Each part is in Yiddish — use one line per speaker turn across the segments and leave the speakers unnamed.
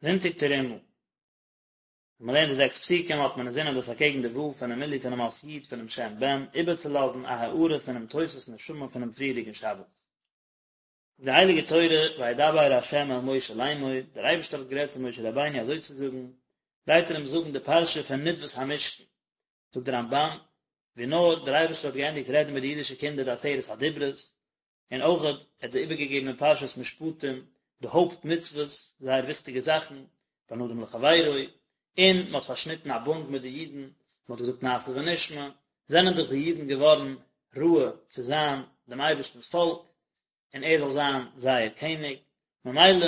זונטאג תרומה. ווען מען לערנט די זעקס פסוקים האט מען אינזינען דאס אקעגן די ו' פונעם מילוי פונעם אות י' פונעם שם בן איבערצולאזן א הארה פונעם תוספות נשמה פונעם פריערדיגן שבת. די הייליגע תורה וידבר ה' אל משה לאמור, דער אייבערשטער האט גערעדט צו משה רבינו אזוי צו זאגן, גייט ער אים זאגן די פרשה פון נדבת המשכן, זאגט דער רמב"ן, ווי נאר דער אייבערשטער האט געענדיגט רעדן מיט די אידישע קינדער די עשרת הדיברות, און אויך ער האט זיי איבערגעגעבן אין פרשת משפטים די הויפט מצוות, זייער וויכטיגע זאכן, בין אדם לחבירו, און מען האט פארשניטן א בונד מיט די אידן, מען האט געזאגט נעשה ונשמע, זענען דאך די אידן געווארן ראוי צו זיין דעם אייבערשטנ'ס פאלק, און ער זאל זיין זייער קעניג, ממילא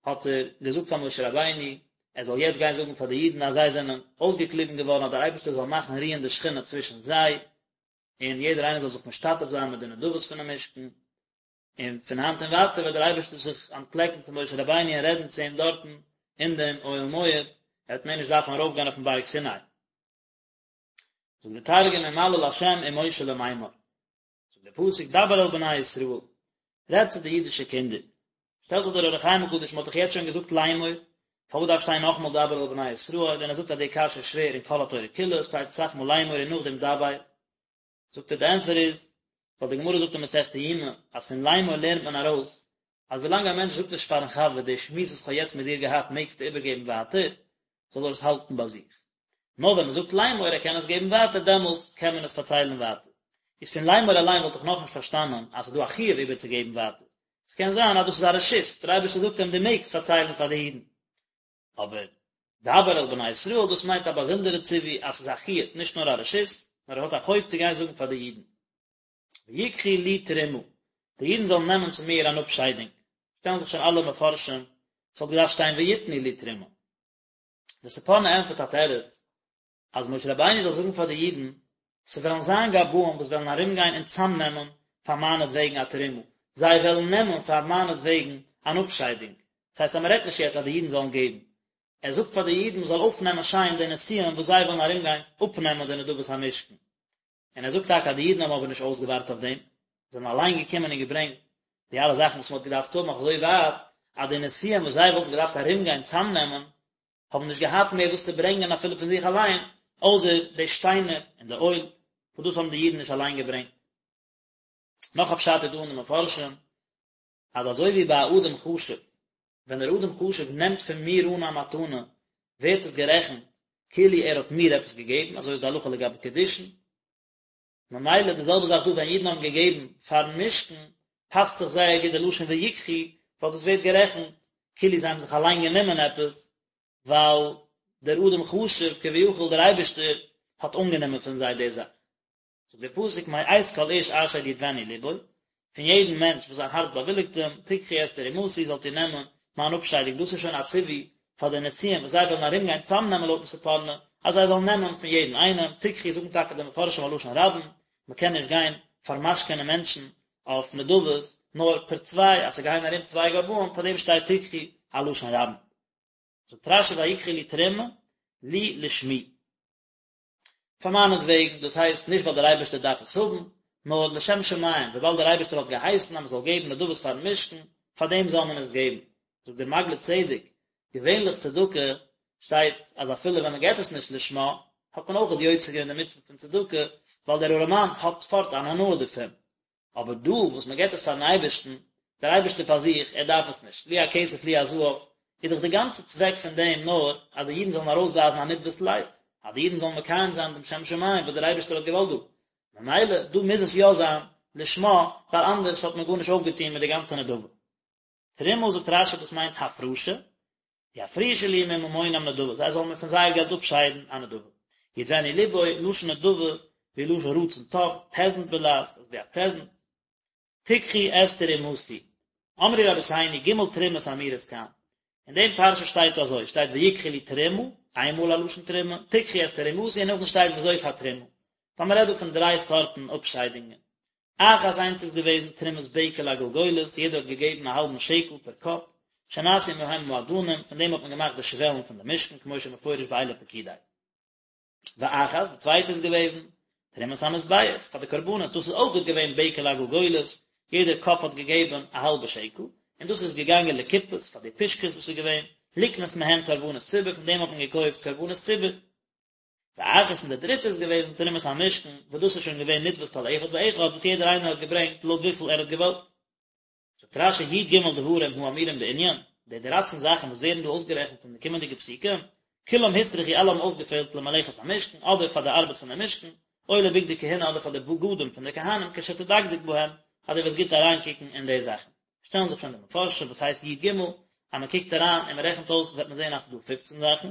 האט ער געזאגט פאר משה רבינו, ער זאל יעצט גיין זאגן פאר די אידן אז זיי זענען אויסגעקליבן געווארן אז דער אייבערשטער זאל מאכן רוען די שכינה צווישן זיי, און יעדער איינער זאל זיך משתתף זיין מיט די נדבות פונעם משכן, און פון היינט און ווייטער וועט דער אייבערשטער זיך אנטפלעקן צו משה רבינו און רעדן צו אים דארטן אין דעם אוהל מועד, ער וועט מער נישט דארפן ארויפגיין אויפן בארג סיני. זאגט דער תרגום ומליל ה' עם משה למימר. זאגט דער פסוק דבר אל בני ישראל, רעד צו די אידישע קינדער. שטעלט זיך דער אור החיים הקדוש, מען האט דאך יעצט שוין געזאגט לאמור, פארוואס דארף שטיין נאכאמאל דבר אל בני ישראל, און ער זאגט אז די קשיא איז שווער אין כל התורה כולה, שטייט אסאך מאל לאמור און נאכדעם דבר. זאגט ער די ענטפער איז, ווייל די גמרא זאגט אין מסכת יומא, אז פון לאמור לערנט מען ארויס, אז ווילאנג א מענטש זאגט נישט פארן חבר די שמועס וואס כ'האב יעצט מיט דיר געהאט מעגסטו איבערגעבן ווייטער, זאל ער עס האלטן ביי זיך. נאר ווען מען זאגט לאמור ער קען עס געבן ווייטער דעמאלטס קען מען עס פארציילן ווייטער. איז פון לאמור אליין וואלט איך נאכנישט פארשטאנען אז ס'איז דא א חיוב איבערצוגעבן ווייטער. ס'קען זיין אז דאס איז א רשות, דער אייבערשטער זאגט אים דו מעגסט פארציילן פאר די אידן. אבער דבר אל בני ישראל דאס מיינט א באזונדערע ציווי אז ס'איז א חיוב נישט נאר א רשות, נאר ער האט א חוב צו גיין זאגן פאר די אידן. ויקחו לי תרומה, די אידן זאלן נעמען צו מיר אן אפשיידונג. שטעלן זיך שוין אלע מפרשים, ס'וואלט געדארפט שטיין ויתנו לי תרומה. דער ספורנו ענטפערט א תירוץ, אז משה רבינו זאל זאגן פאר די אידן, ס'וועלן זיין גבאים וואס וועלן ארומגיין און צאמנעמען פאר מיינעטוועגן א תרומה, זיי וועלן נעמען פאר מיינעטוועגן אן אפשיידונג. דאס הייסט אז מ'רעדט נישט יעצט אז די אידן זאלן געבן, ער זאגט פאר די אידן מ'זאל אויפנעמען שיין די נשיאים וואס זיי וועלן ארומגיין אפנעמען די נדבות המשכן. און ער זאגט טאקע אז די אידן האבן אבער נישט אויסגעווארט אויף דעם, זיי זענען אליין געקומען און געברענגט די אלע זאכן וואס מען האט געדארפט האבן, אויף אזוי ווייט אז די נשיאים וואס זיי וואלטן געדארפט ארומגיין צאמנעמען, האבן נישט געהאט מער וואס צו ברענגען אפילו פון זיך אליין, אויסער די שטיינער און די אויל, וואס דאס האבן די אידן נישט אליין געברענגט. נאך א פשט איז דא אין די מפרשים, אז אזוי ווי ביי א אדם חשוב, ווען דער אדם חשוב נעמט פון מיר אן א מתנה, ווערט עס גערעכנט כאילו ער האט מיר עפעס געגעבן, אזוי איז די הלכה לגבי קידושין, ממילא די זעלבע זאך דא ווען אידן האבן געגעבן פארן משכן, פאסט זיך זייער גוט די לשון ויקחו, ווייל דאס ווערט גערעכנט כאילו זיי האבן זיך אליין גענומען עפעס, ווייל דער אדם חשוב כביכול דער אייבערשטער האט אנגענומען פון זיי די זאך. זאגט דער פסוק מאת כל איש אשר ידבנו לבו, פון יעדן מענטש וואס זיין הארץ באוויליגט אים, תקחו את תרומתי, זאלט איר נעמען מיין אפשיידונג, דאס איז שוין א ציווי פאר די נשיאים וואס זיי וועלן ארומגיין צאמנעמען לויטן ספורנו, אז זיי זאלן נעמען פון יעדן איינעם, תקחו זאגן טאקע די מפרשים א לשון רבים, מען קען נישט גיין פארמשכנ'ען מענטשן אויף נדבות, נאר פער צוויי, אז ס'גייען ארום צוויי גבאים, פאר דעם שטייט תקחו א לשון רבים. זאגט רשי ויקחו לי תרומה, לי לשמי. פאר מיינעטוועגן, דאס הייסט נישט ווייל דער אייבערשטער דארף עס האבן, נאר לשם שמים, וויבאלד דער אייבערשטער האט געהייסן אז מען זאל געבן נדבות פארן משכן, פאר דעם זאל מען עס געבן. זאגט דער מעגלי צדק, געווענליך צדקה שטייט אז אפילו ווען מען געבט עס נישט לשמה, האט מען אויך יוצא געווען די מצוה פון צדקה, ווייל דער ארעמאן האט פארט אן הנאה דערפון. אבער דא וואס מען געבט עס פארן אייבערשטן, דער אייבערשטער פאר זיך, ער דארף עס נישט, לי הכסף לי הזהב, איז דאך די גאנצע צוועק פון דעם נאר אז די אידן זאלן ארויסווייזן א נדבת לב, אז די אידן זאלן מקיים זיין דעם שם שמים וואס דער אייבערשטער האט געוואלט דא, ממילא דא מוז עס יא זיין לשמה, ווייל אנדערש האט מען גארנישט אויפגעטון מיט די גאנצע נדבה. תרומה זאגט רשי דאס מיינט הפרשה, יפרישו לי מממונם נדבה, זיי זאלן מיר פון זייער געלט אפשיידן א נדבה. ידבנו לבו, לשון נדבה, ווי לשון רצון טוב, פעזנט בלע"ז, אזוי ווי א פרעזענט. תקחו את תרומתי. אמרו רבותינו, ג' תרומות האמורות כאן. אין דעם פרשה שטייט אזוי, שטייט ויקחו לי תרומה, איין מאל א לשון תרומה, תקחו את תרומתי און נאכדעם שטייט וזאת התרומה. ווייל מען רעדט דא פון דריי סארטן אפשיידונגען. אחת איינס איז געוועזן תרומת בקע לגלגולת, יעדער האט געגעבן א האלבן שקל פער קאפ, שנעשו מהם האדנים, פון דעם האט מען געמאכט די שוועלן פון די משכן, כמו שמפורש באלה פקודי. ואחת, די צווייטע איז געוועזן, תרומת המזבח, פאר די קרבנות, דאס איז אויך געווען בקע לגלגולת, יעדער קאפ האט געגעבן א האלבע שקל, און דאס איז געגאנגען לקופות, פאר די פושקעס וואס איז געווען. לקנות מהן קרבנות ציבור, פון דעם האט מען געקויפט קרבנות ציבור. ואחת און די דריטע איז געוועזן תרומת המשכן, וואס דאס איז שוין געווען נדבת כל אחד ואחד, וואס יעדער איינער האט געברענגט לויט וויפיל ער האט געוואלט. זאגט רש"י י"ג דברים האמורים בענין, די דרייצן זאכן וואס ווערן דא אויסגערעכנט אין די קומענדיגע פסוקים, כולם הוצרכו אלע האבן אויסגעפעלט למלאכת המשכן, אדער פאר די ארבעט פון די משכן, או לבגדי כהונה אדער פאר די בגדים פון די כהנים כשתדקדק בהם, אז דו וועסט גוט אריינקוקן אין די זאכן. שטעלן זיך שוין די מפרשים וואס הייסט י"ג, אז מען קוקט אריין און מען רעכנט אויס וועט מען זען אז ס'איז דא פופצן זאכן.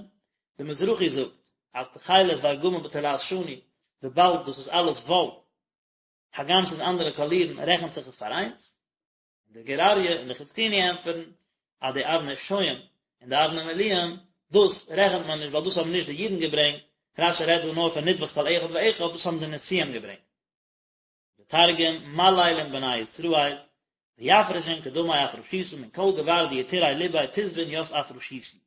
די מזרחי זאגט אז תכלת וארגמן ותולעת שני, וויבאלד דאס איז אלעס וואל, הגם ס'איז אנדערע קאלירן רעכנט זיך עס פאר איינס, און דער גור אריה און דער חזקוני ענטפערן אז די אבני שוהם און די אבני מילואים דאס רעכנט מען נישט ווייל דאס האבן נישט די אידן געברענגט, רש"י רעדט דא נאר פון נדבת כל אחד ואחד, דאס האבן די נשיאים געברענגט. די תרגום, מליל עם בני ישראל, ויפרשון קדמי אפרשותא מן כל גבר דיתירי לביה תסבון ית אפרשיתו.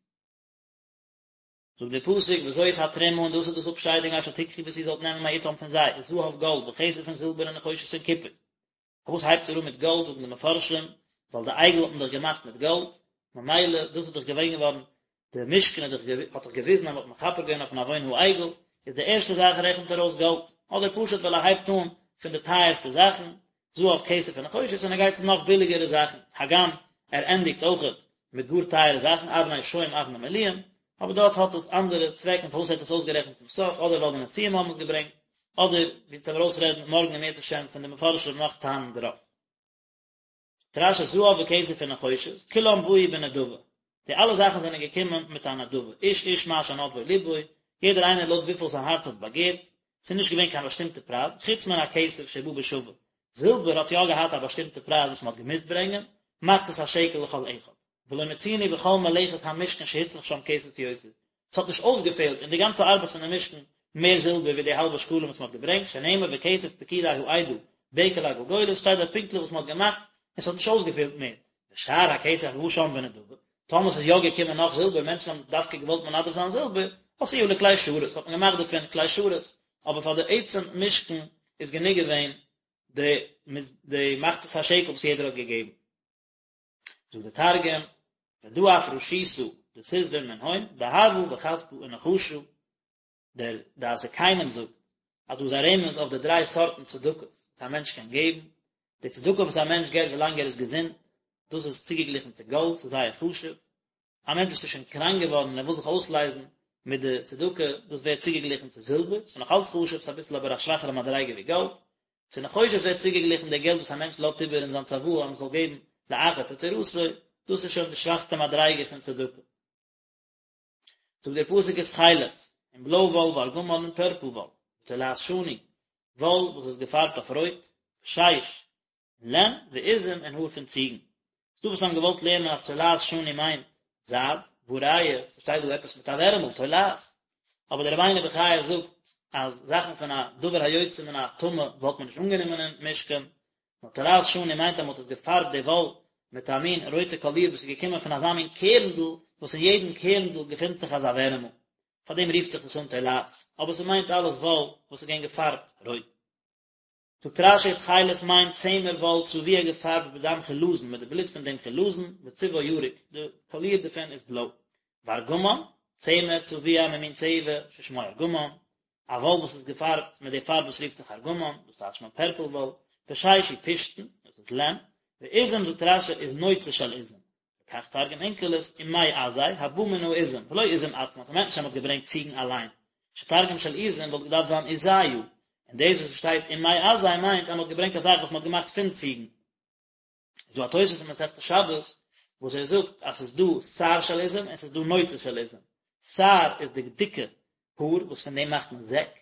זאגט דער פסוק וזאת התרומה און דאס איז דאס אפשיידונג אשר תקחו וואס איר זאלט נעמען מאתם פון זיי, זהב גאלד וכסף און זילבער ונחושת און קופער. פארוואס הייבט ער אן מיט גאלד זאגן די מפרשים, ווייל די עגל האט מען דאך געמאכט מיט גאלד, ממילא דאס איז דאך געווען געווארן, די משכן האט דאך האט דאך געוויזן אז מען האט מכפר געווען אויפן עוון העגל, איז די ערשטע זאך רעכנט ער אויס גאלד, אדער פשוט ווייל ער הייבט אן פון די טייערסטע זאכן, זהב כסף ונחושת און ער גייט צו נאך ביליגערע זאכן, הגם ער ענדיגט אויכעט מיט גאר טייערע זאכן, אבני שוהם אבני מילואים, אבער דארט האט עס אנדערע צוועקן פארוואס ער האט עס אויסגערעכנט צום סוף, אדער ווייל די נשיאים האבן עס געברענגט, אדער ווי אונז וועלן ארויסרעדן מארגן אם ירצה השם פון די מפרשים נאך טעמים דערויף. זאגט רש"י זהב וכסף ונחושת, כולם באו בנדבה, די אלע זאכן זענען געקומען מיט א נדבה, איש איש מה שנדבו לבו, יעדער איינער לויט וויפיל זיין הארץ האט באגערט, ס'איז נישט געווען קיין באשטימטע פרייז, חוץ מן הכסף שבא בשווה, זילבער האט יא געהאט א באשטימטע פרייז וואס מ'האט געמוזט ברענגען, מחצית השקל לכל אחד. ולא מצינו בכל מלאכת המשכן שהוצרך שם כסף יותר, ס'האט נישט אויסגעפעלט אין די גאנצע ארבעט פון די משכן מער זילבער ווי די האלבע שקלים וואס מ'האט געברענגט, שנאמר וכסף פקודי העדה בקע לגלגולת, שטייט דארט פונקטליך וואס מ'האט געמאכט, און ס'האט נישט אויסגעפעלט מער. ושאר הכסף הבא שם בנדבה, טאמער ס'איז יא געקומען נאך זילבער, מענטשן האבן דווקא געוואלט מנדב זיין זילבער, עשאוה לכלי שרת, האט מען געמאכט דערפון כלי שרת, אבער פאר די עצם משכן איז גענוג געווען די די מחצית השקל וואס יעדער האט געגעבן. זאגט דער תרגום, ודא אפרשותא דתסבון מנהון, דהבא וכספא ונחשא, דער דעת זקנים זאגט אז דא איז א רמז אויף די דריי סארטן צדקות וואס א מענטש קען געבן, די צדקה וואס א מענטש געבט ווילאנג ער איז געזונט, דאס איז צוגעגליכן צו גאלד, ס'איז זייער חשוב, א מענטש וואס איז שוין קראנק געווארן און ער וויל זיך אויסלייזן מיט די צדקה, דאס ווערט צוגעגליכן צו זילבער, ס'איז נאך אלץ חשוב, ס'איז אביסל אבער א שוואכערע מדריגה ווי גאלד. צו נחושת ווערט צוגעגליכן די געלט וואס א מענטש לאזט איבער אין זיין צוואה אז מ'זאל געבן לאחר פטירתו, דאס איז שוין די שוואכסטע מדריגה פון צדקה. זאגט דער פסוק ותכלת, און בלוי וואל וארגמן און פערפל וואל, ותולעת שני, וואל וואס איז געפארבט אויף רויט, ושש, און לען, ועזים און האר פון ציגן. ס'דא וואס האבן געוואלט לערנען אז תולעת שני מיינט זייד, והא ראיה, ס'שטייט דא עפעס מיט א ווערעמל, תולעת. אבער דער רבינו בחיי זאגט אז זאכן פון א דבר היוצא מן הטמא וואלט מען נישט אנגענומען אין משכן, נאר תולעת שני מיינט אז מ'האט עס געפארבט די וואל מיט א מין רויטע קאליר וואס איז געקומען פון אזא מין קערנדל וואס אין יעדן קערנדל געפינט זיך אזא ווערעמל, פאר דעם רופט זיך עס אן תולעת, אבער ס'מיינט אלעס וואל וואס איז געווען געפארבט רויט. זאגט רש"י תכלת מיינט צמר וואל צבוע געפארבט בדם חילזון מיט די בלוט פון דעם חילזון וצבעו ירוק, די קאליר דערפון איז בלוי. וארגמן, צמר צבוע ממין צבע ששמו ארגמן, א וואל וואס איז געפארבט מיט די פארב וואס רופט זיך ארגמן, דאס טייטשט מען פערפל וואל, ושש הוא פשתן, דאס איז לען, ועזים זאגט רש"י איז נוצה של עזים, וכך תרגם אונקלוס, ומעזי, הבא מן העזים, ולא עזים עצמן, ס'מיינט נישט אז מ'האט געברענגט ציגן אליין, שתרגום של עזים וואלט געדארפט זיין עזיא, און דאס וואס שטייט ומעזי מיינט אז מ'האט געברענגט א זאך וואס מ'האט געמאכט פון ציגן. איז דא א תוספות אין מסכת שבת וואס ער זאגט אז ס'איז דא שער של עזים און ס'איז דא נוצה של עזים. שער איז די דיקע האר וואס פון דעם מאכט מען זעק,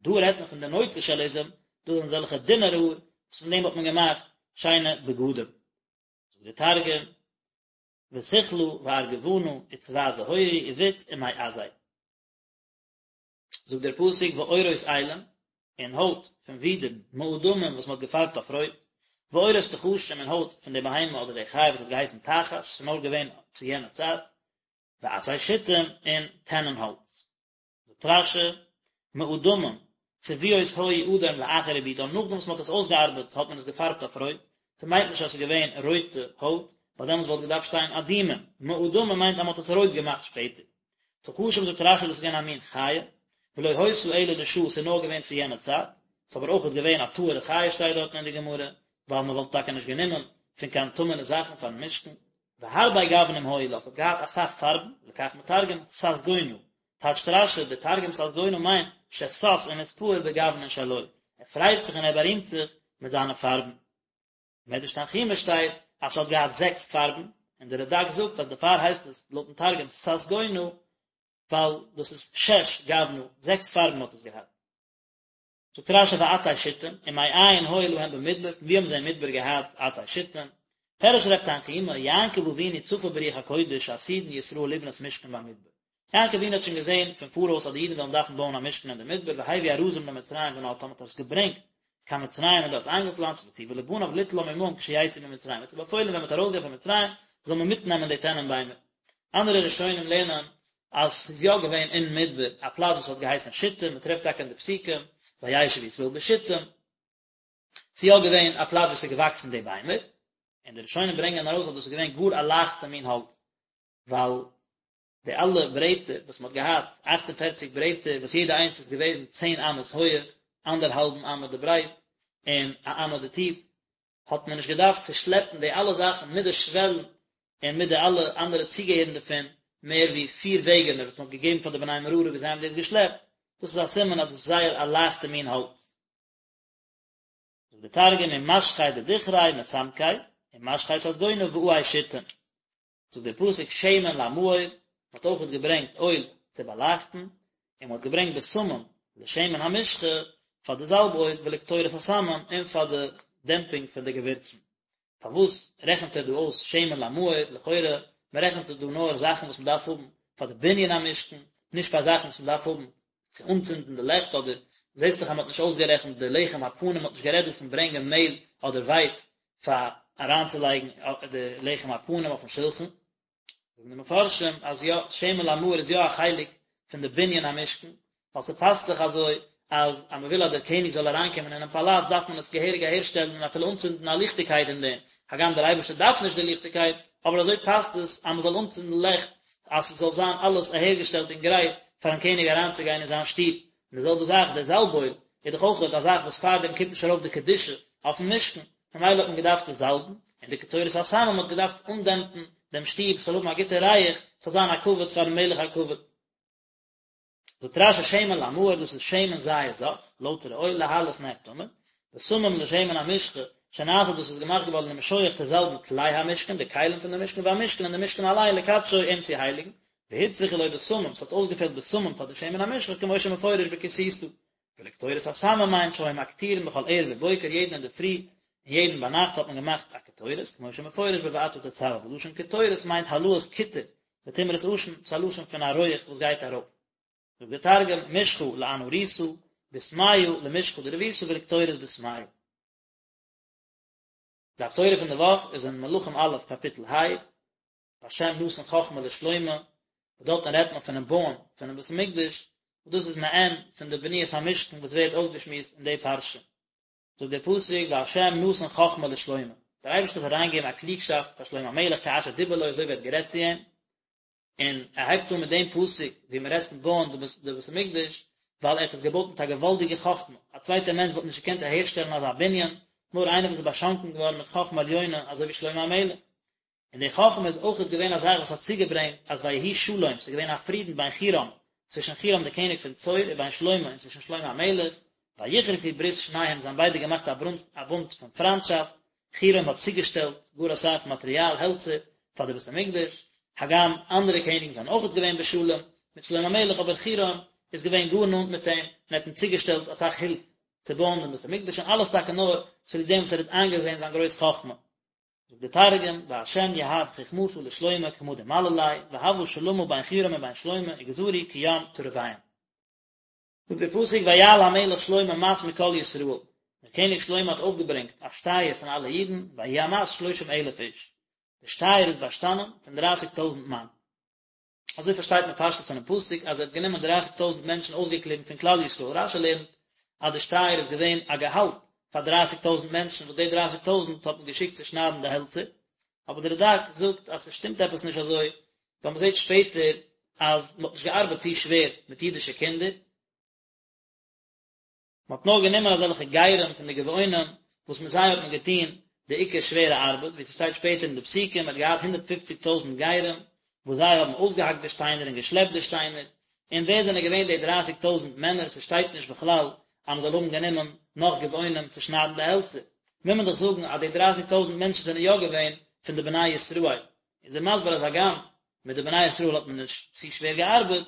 דא רעדט מען פון די נוצה של עזים, דאס זענען אזעלכע דינערע האר וואס פון דעם האט מען געמאכט שיינע בגדים. זאגט דער תרגום, ותכלא וארגבנא וצבע זהורי ובוץ ומעזי. זאגט דער פסוק ועורות אילים, און הויט פון ווידערן, מאדמים וואס מען האט געפארבט אויף רויט, ועורות תחשים און הויט פון די בהמה אדער די חיה וואס האט געהייסן תחש, ס'איז נאר געווען צו יענע צייט, ועצי שיטים און טענען האלץ. זאגט רש"י, מאדמים, צבועות היו אדום לאחר עיבודן, נאכדעם וואס מען האט עס אויסגעארבעט האט מען עס געפארבט אויף רויט, ס'מיינט נישט אז ס'איז געווען רויטע הויט, ווייל דעמאלטס וואלט געדארפט שטיין אדומים, מאדמים מיינט אז מען האט עס רויט געמאכט שפעטער. תחשים זאגט רשי דאס איז געווען א מין חיה, ולא היתה אלא לשעה ס'איז נאר געווען צו יענע צייט, ס'איז אבער אויכעט געווען א טהור'ע חיה שטייט דארטן אין די גמרא, ווייל מען וואלט טאקע נישט גענומען פון קיין טמא'נע זאכן פארן משכן. והרבה גוונים היו לה, ס'האט געהאט אסאך פארבן, לכך מתרגם ססגונא, טייטשט רשי, די תרגום ססגונא מיינט ששש ונתפאר בגוונין שלו, ער פרייט זיך און ער בארימט זיך מיט זיינע פארבן. מדרש תנחומא שטייט אז ס'האט געהאט זעקס פארבן, און דער רדק זאגט אז דערפאר הייסט עס לויטן תרגום ססגונא, ווייל דאס איז שש גוונא, זעקס פארבן האט עס געהאט. זאגט רשי ועצי שיטים, ומאין היו להם במדבר, פון ווי האבן זיי אין מדבר געהאט עצי שיטים? פירש רב תנחומא, יעקב אבינו צפה ברוח הקודש שעתידין ישראל לבנות משכן במדבר. יעקב אבינו האט שוין געזען פון פאראויס אז די אידן וועלן דארפן בויען א משכן אין די מדבר והביא ארזים למצרים ונטעם האט ער עס געברענגט קיין מצרים און דארט איינגעפלאנצט וציוה לבניו ליטלם עמהם כשיצאו ממצרים ער האט זיי באפוילן ווען מען וועט ארויסגיין פון מצרים זאל מען מיטנעמען די טענען ביימער. אנדערע ראשונים לערנען אז ס'איז יא געווען אין מדבר א פלאץ וואס האט געהייסן שיטים, מען טרעפט טאקע אין די פסוקים וישב ישראל בשיטים, ס'איז יא געווען א פלאץ וואו ס'איז געוואקסן די ביימער, און די ראשונים ברענגען ארויס אז דאס איז געווען גאר א לייכטע מין האלץ, ווייל די אלע ברעטער וואס מען האט געהאט, אכט און פערציג ברעטער, וואס יעדע איינס איז געוועזן צען אמות הויעך, אנדערהאלבן אמה די ברייט, און א אמה די טיף, האט מען נישט געדארפט צו שלעפן די אלע זאכן מיט די שוועלן און מיט די אלע אנדערע צוגעהערן דערפון, מער ווי פיר וועגענער וואס מען האט געגעבן פאר די בני מררי ווי זיי האבן דאס געשלעפט, דאס איז א סימן אז עס איז זייער א לייכטע מין האלץ. זאגט דער תרגום ומשכי דדכרי מסמקי, ומשכי ססגונא ועי שיטים. זאגט דער פסוק שמן למאור, מען האט אויכעט געברענגט אויל צו באלייכטן, און מען האט געברענגט בשמים לשמן המשחה פאר די זאלב אויל ולקטורת הסמים און פאר די דעמפינג פון די געווירצן. פארוואס רעכנט ער דא אויס שמן למאור, לכאורה מען רעכנט דא נאר זאכן וואס מען דארף האבן פאר די בנין המשכן, נישט פאר זאכן וואס מען דארף האבן צו אנצינדן די לעכט אדער זעסט דאך אז מען האט נישט אויסגערעכנט די לחם הפנים, מען האט נישט גערעדט דא פון ברענגען מעהל אדער ווייץ פאר אריינצולייגן די לחם הפנים אויפן שלחן, זאגן די מפרשים אז יא, שמן למאור איז יא א חלק פון די בנין המשכן, ווייל ס'פאסט זיך אזוי אז אז מ'וויל אז דער קעניג זאל אריינקומען אינעם פאלאץ דארף מען עס געהעריג אהערשטעלן און אפילו אנצינדן א ליכטיגקייט אין דעם, הגם דער אייבערשטער דארף נישט די ליכטיגקייט, אבער אזוי פאסט עס אז מ'זאל אנצינדן לעכט אז ס'זאל זיין אלעס אהערגעשטעלט און גרייט פארן קעניג אריינצוגיין אין זיין שטוב. און די זעלבע זאך דער זאלב אויל איז דאך אויך א זאך וואס פאר דעם קומט נישט ארויף די קדושה אויפן משכן, ממילא האט מען געדארפט עס זאלבן, און די קטורת הסמים האט געדארפט אנדעמפן דעם שטוב ס'זאל האבן א גוטע ריח, ס'זאל זיין א כבוד פארן מלך הכבוד. זאגט רשי שמן למאור דאס איז שמן זית זך, לויטערע אויל להעלות נר תמיד, בשמים לשמן המשחה, שנעשה דאס איז געמאכט געווארן למשוח צו זאלבן כלי המשכן, די כלים פון די משכן, והמשכן און די משכן אליין לקדשו אים צו הייליגן, והוצרכו לו בשמים, ס'האט אויסגעפעלט בשמים פאר די שמן המשחה כמו שמפורש בכי תשא. ולקטורת הסמים מיינט שהיו מקטירין בכל ערב ובוקר יעדן אינדערפרי און יעדן ביינאכט האט מען געמאכט א קטורת, כמו שמפורש בואתה תצוה, ולשון קטורת מיינט העלאת קיטור ותמרת עשן, ס'איז א לשון פון א רויעך וואס גייט ארויף. זאגט דער תרגום, משחא לאנהורתא, בסמיא למשחא דרבותא ולקטורת בסמיא. די הפטורה פון די וואך איז אין מלכים א' קאפיטל ה, והשם נתן חכמה לשלמה, וואס דארטן רעדט מען פונעם בויען פונעם בית המקדש, וואס דאס איז מעין פון די בניית המשכן וואס ווערט אויסגעשמועסט אין די פרשה. זאגט דער פסוק והשם נתן חכמה לשלמה, דער אייבערשטער האט אריינגעגעבן א קלוגשאפט פאר שלמה המלך כאשר דיבר לו אזוי ווי ער האט גערעדט צו אים, און ער הייבט אן מיט דעם פסוק ווי מען רעדט פון בויען די בית המקדש, ווייל ער האט עס געבויט מיט א געוואלדיגע חכמה, א צווייטער מענטש וואלט נישט געקענט אהערשטעלן אזא בנין, נאר איינער וואס איז באשאנקען געווארן מיט חכמה עליונה אזוי ווי שלמה המלך. און די חכמה איז אויכעט געווען א זאך וואס האט צוגעברענגט אז ויהי שלום, ס'איז געווען א פרידן בין חירם, צווישן חירם דער קעניג פון צור, ובין שלמה, און צווישן שלמה המלך, ויכרתו ברית שניהם, זיי האבן ביידע געמאכט א ברונט, א בונד פון פריינטשאפט, חירם האט צוגעשטעלט גאר אסאך מאטריאל, העלצער, פאר די בית המקדש, הגם אנדערע קעניגן זענען אויכעט געווען בשלום מיט שלמה המלך, אבער חירם איז געווען גאר נאנט מיט אים, און האט אים צוגעשטעלט אסאך הילף צו בויען דעם בית המקדש, און אלעס טאקע נאר צוליב דעם וואס ער האט איינגעזען זיין גרויס חכמה. זאגט דער תרגום, וה' יהב חכמתא לשלמה כמא דמלל ליה, והוה שלמא בין חירם ובין שלמה וגזרו כים תרוויהון. זאגט דער פסוק ויעל המלך שלמה מס מכל ישראל, דער קעניג שלמה האט אויפגעברענגט א שטייער פון אלע אידן, ויהי המס שלושים אלף איש, די שטייער איז באשטאנען פון דרייסיג טויזנט מאן. אזוי פארשטייט מען פשטות פונעם פסוק אז ער האט גענומען דרייסיג טויזנט מענטשן אויסגעקליבן פון כלל ישראל, רשי לערנט אז די שטייער איז געווען א געהאלט פאר דרייסיג טויזנט מענטשן וואס די דרייסיג טויזנט האט מען געשיקט צו שניידן די העלצער. אבער דער רד"ק זאגט אז ס'שטימט עפעס נישט אזוי, ווייל מ'זעט שפעטער אז מ'האט נישט געארבעט צו שווער מיט אידישע קינדער, מ'האט נאר גענומען אזעלכע גרים פון די גבעונים וואס מיט זיי האט מען געטון די עיקר שווערע ארבעט, ווי ס'שטייט שפעטער אין די פסוקים, מ'האט געהאט הונדערט פופציג טויזנט גרים וואס זיי האבן אויסגעהאקט די שטיינער און געשלעפט די שטיינער, און ווער זענען געווען די דרייסיג טויזנט מענער, ס'שטייט נישט בכלל אז מ'זאל האבן גענומען נאך גבעונים צו שניידן די העלצער, מוז מען דאך זאגן אז די דרייסיג טויזנט מענטשן זענען יא געווען פון די בני ישראל, איז ער מסביר אז הגם מיט די בני ישראל האט מען נישט צו שווער געארבעט,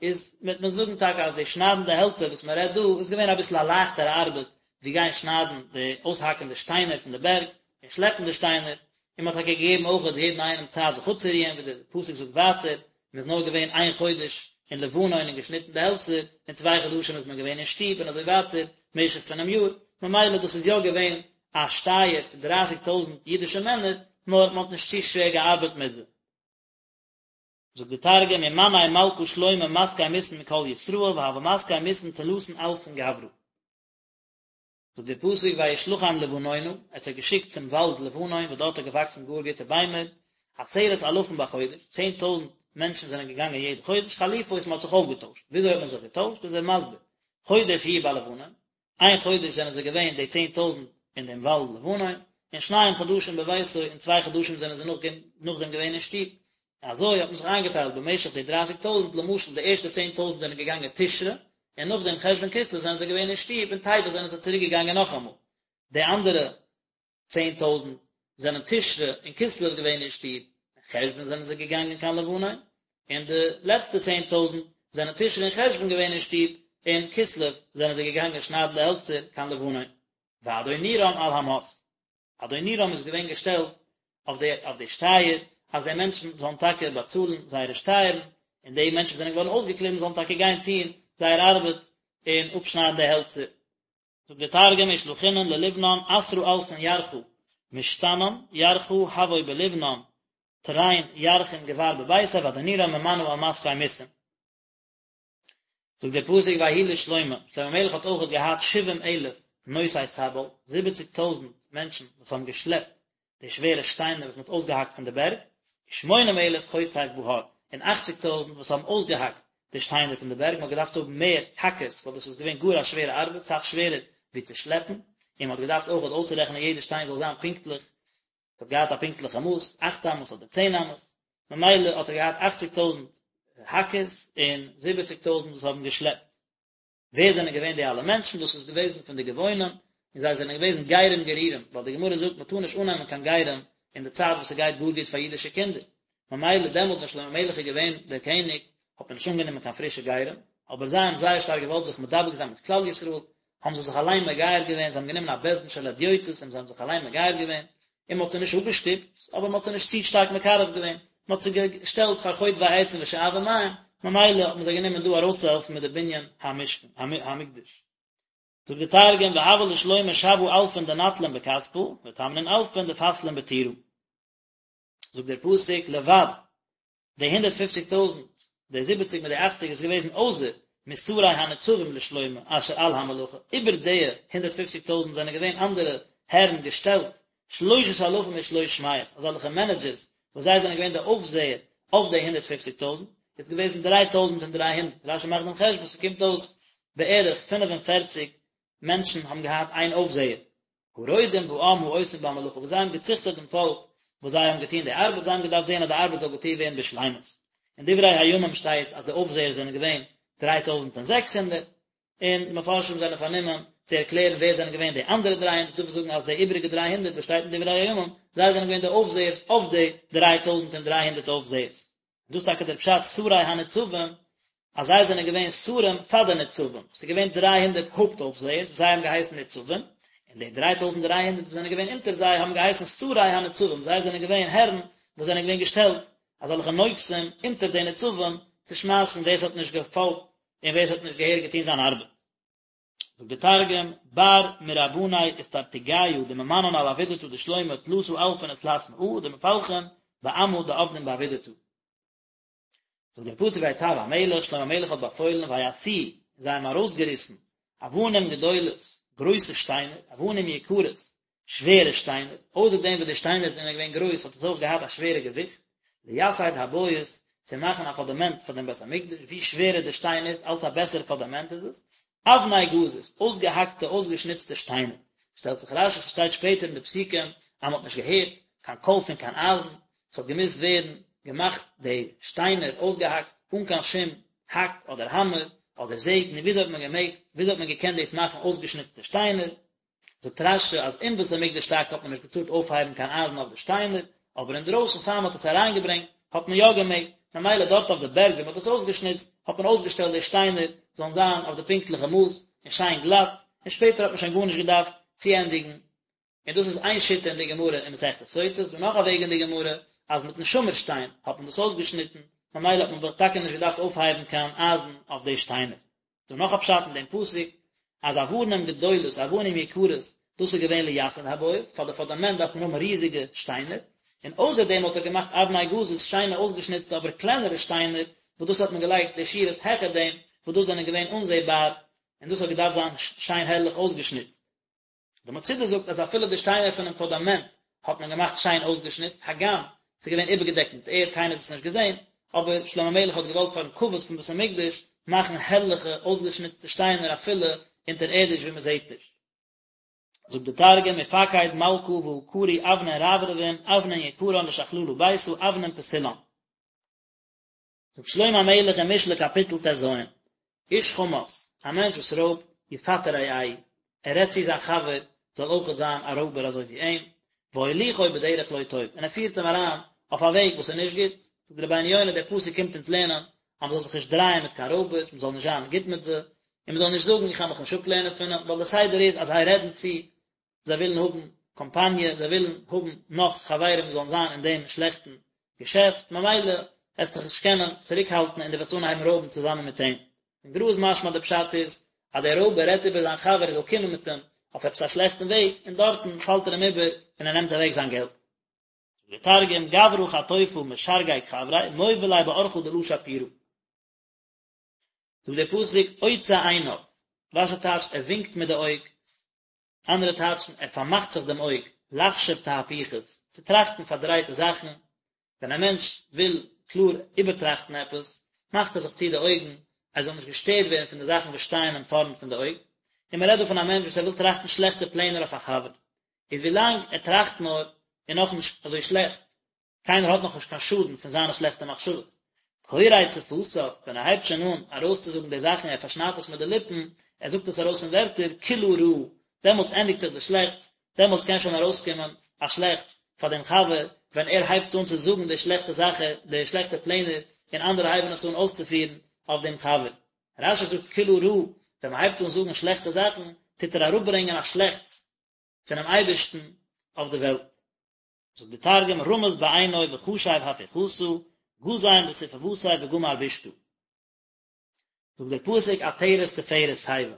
איז וועט מען זאגן טאקע אז די שניידן די העלצער וואס מען רעדט דא איז געווען אביסל א לייכטערע ארבעט ווי גיין שניידן די אויסהאקן די שטיינער פון די בערג און שלעפן די שטיינער, און מען האט טאקע געגעבן אויך יעדן איינעם צייט זיך אפצורוען ווי דער פסוק זאגט ווייטער, מען איז נאר געווען איין חודש אין לבנון און געשניטן די העלצער, און צוויי חדשים איז מען געווען אין שטוב און אזוי ווייטער משך פונעם יאר, ממילא דאס איז יא געווען א שטייער פון דרייסיג טויזנט אידישע מענער, נאר מען האט נישט צו שווער געארבעט מיט זיי. זאגט די תרגום ומני מלכא שלמה מסקי מסין מכל ישראל והוה מסקי מסין תלתין אלפין גברא. זאגט דער פסוק וישלחם לבנונה, ער האט זיי געשיקט צום וואלד לבנון וואס דארט האט געוואקסן גאר גוטע ביימער, עשרת אלפים בחודש, 10,000 מענטשן זענען געגאנגען יעדע חודש, חליפות מען האט זיך אויפגעטוישט, וויאזוי האט מען זיך געטוישט איז ער מסביר, חודש יהיו בלבנון, איין חודש זענען זיי געווען די 10,000 אין דעם וואלד לבנון, און שניים חדשים בביתו, און צוויי חדשים זענען זיי נאכדעם געווען אין שטוב, אזוי האט מען זיך איינגעטיילט במשך די דרייסיג טויזנט, למשל די ערשטע צען טויזנט זענען געגאנגען תשרי, און נאכדעם חשוון כסלו זענען זיי געווען אין שטוב, און טבת זענען זיי צוריק געגאנגען נאכאמאל. די אנדערע צען טויזנט זענען תשרי און כסלו געווען אין שטוב, און חשוון זענען זיי געגאנגען קיין לבנון, און די לעצטע צען טויזנט זענען תשרי און חשוון געווען אין שטוב, און כסלו זענען זיי געגאנגען שניידן די העלצער קיין לבנון. ואדונירם על המס. אדונירם איז געווען געשטעלט אויף די אויף די שטייער, אז די מענטשן זאלן טאקע באצאלן זייערע שטייערן, און די מענטשן וואס זענען געווארן אויסגעקליבן זאלן טאקע גיין טון זייער ארבעט און אפשניידן די העלצער. זאגט דער תרגום ושלחינן ללבנן עשרא אלפין ירחא משתנן ירחא הוו בלבנון תרין ירחין גבר בביתיה ואדונירם ממנא על מסקי מסין. זאגט דער פסוק ויהי לשלמה, שלמה המלך האט אויכעט געהאט שבעים אלף נושאי סבל, זיבעציג טויזנט מענטשן וואס האבן געשלעפט די שווערע שטיינער וואס מען האט אויסגעהאקט פון די בערג, ושמונים אלף חוצב בהר, און אכציג טויזנט וואס האבן אויסגעהאקט די שטיינער פון די בערג, מען האט געדארפט האבן מער האקערס ווייל דאס איז געווען גאר א שווערע ארבעט, סאך שווערער ווי צו שלעפן, און מען האט געדארפט אויכעט אויסצורעכענען יעדע שטיין זאל זיין פונקטליך ס'האט געהאט א פונקטליכע מאס, אכט אמות אדער צען אמות, ממילא האט ער געהאט אכציג טויזנט האקערס און זיבעציג טויזנט וואס האבן געשלעפט. ווער זענען געווען די אלע מענטשן? דאס איז געוועזן פון די גבעונים, און זיי זענען געוועזן גרים גרורים, ווייל די גמרא זאגט מ'טאר נישט אננעמען קיין גרים אין די צייט וואס ס'גייט גאר גוט פאר אידישע קינדער, ממילא דעמאלטס ווען שלמה המלך איז געווען דער קעניג האט מען נישט אנגענומען קיין פרישע גרים, אבער זיי האבן זייער שטארק געוואלט זיך מדבק זיין מיט כלל ישראל, האבן זיי זיך אליין מגייר געווען, זיי האבן גענומען א בית דין של הדיוטות און זיי האבן זיך אליין מגייר געווען, און מען האט זיי נישט אפגעשטופט, אבער מען האט זיי נישט צו שטארק מקרב געווען, מען האט זיי געשטעלט פאר חוטבי עצים ושואבי מים, ממילא האט מען זיי גענומען דא ארויסצוהעלפן מיט די בנין המשכן, המקדש. זאגט די תרגום, והוה לשלמה שבעא אלפין דנטלין בכספא, ותמנין אלפין דפסלין בטורא. זאגט דער פסוק לבד די הונדערט פופציג טויזנט, די זיבעציג מיט די אכציג איז געוועזן אויסער משרי הניצבים לשלמה אשר על המלאכה, איבער די הונדערט פופציג טויזנט זענען געווען אנדערע הערן געשטעלט, שלושת אלפים ושלוש מאות, אזעלכע מענעדזשערס וואס זיי זענען געווען די אויפזעער אויף די הונדערט פופציג טויזנט, איז געוועזן דריי טויזנט און דריי הונדערט, רשי מאכט דעם חשבון ס'קומט אויס בערך פינף און פערציג מענטשן האבן געהאט איין אויפזעער, הרודים בעם העושים במלאכה, וואס זיי האבן געציכטעט דעם פאלק וואס זיי האבן געטון די ארבעט, זיי האבן געדארפט זען אז די ארבעט זאל געטון ווערן בשלימות. אין דברי הימים שטייט אז די אויפזעער זענען געווען 3600, און די מפרשים זענען פארנומען צו ערקלערן ווער זענען געווען די אנדערע 300, ס'דא וואס זאגן אז די איבעריגע 300 וואס שטייט אין דברי הימים, זיי זענען געווען די אויפזעערס אויף די 3300 אויפזעערס. דאס איז טאקע דער פשט שרי הניצבים, אז זיי זענען געווען שרים פאר די ניצבים, ס'איז געווען דריי הונדערט הויפט אויפזעערס וואס זיי האבן געהייסן ניצבים, און די דריי טויזנט דריי הונדערט וואס זענען געווען אונטער זיי האבן געהייסן שרי הניצבים, זיי זענען געווען הערן וואס זענען געווען געשטעלט אזעלכע נוגסים אונטער די ניצבים צו שמייסן ווער ס'האט נישט געפאלגט און ווער ס'האט נישט געהעריג געטון זיין ארבעט. זאגט דער תרגום, בר מרבני אסטרטגיא דממנן על עבידתא דשלמה תלתא אלפין ותלת מאה דמפלחין בעמא דעבדין בעבידתא. זאגט דער פסוק ויצו המלך, שלמה המלך האט באפוילן ויסיעו, און זיי האבן ארויסגעריסן אבנים גדולות, גרויסע שטיינער, אבנים יקרות, שווערע שטיינער, אויסער דעם וואס די שטיינער זענען געווען גרויס האט עס אויך געהאט א שווערע געוויכט, לייסד הבית, צו מאכן א פאדאמענט פאר דעם בית המקדש, ווי שווערער די שטיין איז, אלץ א בעסערע פאדאמענט איז עס, אבני גזית, אויסגעהאקטע אויסגעשניצטע שטיינער, שטעלט זיך רשי, ס'שטייט שפעטער אין די פסוקים אז מ'האט נישט געהערט קיין קול פון קיין אייזן, ס'האט געמוזט ווערן געמאכט די שטיינער אויסגעהאקט אן קיין שום האק אדער האמער אדער זעג, נו וויאזוי האט מען געמעגט, וויאזוי האט מען געקענט דאס מאכן אויסגעשניצטע שטיינער? זאגט רשי אז אין בית המקדש טאקע האט מען נישט געטארט אויפהייבן קיין אייזן אויף די שטיינער, אבער אינדרויסן פאר מען האט עס אריינגעברענגט האט מען יא געמעגט, ממילא דארט אויף די בערג ווי מען האט עס אויסגעשניצט האט מען אויסגעשטעלט די שטיינער זאלן זיין אויף די פונקטליכע מאס און שיין גלאט, און שפעטער האט מען שוין גארנישט געדארפט צוענדיגן. און דאס איז איין שיטה אין די גמרא אין מסכת סוטה, ס'איז דא נאך א וועג אין די גמרא אז מיטן שמיר שטיין האט מען דאס אויסגעשניטן, ממילא האט מען טאקע נישט געדארפט אויפהייבן קיין אייזן אויף די שטיינער. דא נאך א פשט אין דעם פסוק, אז אבנים גדולות, אבנים יקרות, דאס איז געווען לייסד הבית, פאר די פונדאמענט דארף מען האבן ריזיגע שטיינער, און אויסער דעם האט ער געמאכט אבני גזית, שיינע אויסגעשניצטע אבער קלענערע שטיינער, וואס דאס האט מען געלייגט די שורות העכער דעם, וואס דאס זענען געווען אנזעבאר, און דאס האט געדארפט זיין שיין הערליך אויסגעשניצט. די מצודה זאגט אז אפילו די שטיינער פונעם פונדאמענט האט מען געמאכט שיין אויסגעשניצט, הגם ס'איז געווען איבערגעדעקט מיט ערד, קיינער האט עס נישט געזען, אבער שלמה המלך האט געוואלט פארן כבוד פון בית המקדש מאכן הערליכע אויסגעשניצטע שטיינער אפילו אונטערערדיש ווי מען זעט נישט. זאגט די תרגום ופקיד מלכא ועקרו אבנין רברבין אבנין יקרן לשכללא ביתא אבנין פסילן. זאגט שלמה המלך אין משלי קאפיטל טז, איש חמס, א מענטש וואס רויבט, יפתה רעהו, ער רעדט צו זיין חבר זאל אויכעט זיין א רויבער אזוי ווי אים, והוליכו בדרך לא טוב, און ער פירט אים אריין אויף א וועג וואס איז נישט גוט, זאגט רבינו יונה, דער פסוק קומט אונז לערנען אז מען זאל זיך נישט דרייען מיט קיין רויבערס, מען זאל נישט זיין גוט מיט זיי, און מען זאל נישט זאגן איך קען מיך נישט אפלערנען פון אים, ווייל דער סדר איז אז זיי רעדן צו זיי ווילן האבן קאמפאניע, זיי ווילן האבן נאך חברים וואס זאלן זיין אין דעם שלעכטן געשעפט, ממילא וועסטו דיך נישט קענען צוריקהאלטן און דו וועסט אנהייבן רויבן צוזאמען מיט אים. אין גר"א איז משמע די פשט איז, אז דער רויבער רעדט איבער זיין חבר ער זאל קומען מיט אים אויף עפעס א שלעכטן וועג, און דארטן פאלט ער אים איבער און ער נעמט אוועק זיין געלט. זאגט דער תרגום, גברא חטופא משרגג חבריה, מוביל ליה באורחא דלא שפירא. זאגט דער פסוק, עוצה עיניו, רש"י טייטשט ער ווינקט מיט די אויג, אנדערע טייטשן, ער פארמאכט זיך דעם אויג, לחשוב תהפוכות, צו טראכטן פארדרייטע זאכן, ווען א מענטש וויל קלאר איבערטראכטן עפעס, מאכט ער זיך צו די אויגן, ער זאל נישט געשטערט ווערן פון די זאכן וואס שטייען אים פארנט פון די אויג, און מען רעדט דא פון א מענטש וואס ער וויל טראכטן שלעכטע פלענער אויף א חבר, איז ווילאנג ער טראכט נאר, איז נאכנישט אזוי שלעכט, קיינער האט נאכנישט קיין שאדן פון זיינע שלעכטע מחשבות. קורץ שפתיו, ווען ער הייבט שוין אן ארויסצוזאגן די זאכן, ער פארשניידט עס מיט די ליפן, ער זאגט עס ארויס אין ווערטער, כולה רעה, דעמאלטס ענדיגט זיך די שלעכטס, דעמאלטס קען שוין ארויסקומען א שלעכטס פאר דעם חבר, ווען ער הייבט אן צו זאגן די שלעכטע זאכן, די שלעכטע פלענער, און אנדערע הייבן עס אן אויסצופירן אויף דעם חבר. רש"י זאגט כולה רעה, ווען מען הייבט אן זאגן שלעכטע זאכן, טוט ער אראפברענגען א שלעכטס פונעם אייבערשטן אויף די וועלט. זאגט די תרגום רמז בעינוי וחשיב הפיכתא, גזים בספוותיה וגמר בישתא. זאגט דער פסוק עטרת תפארת שיבה,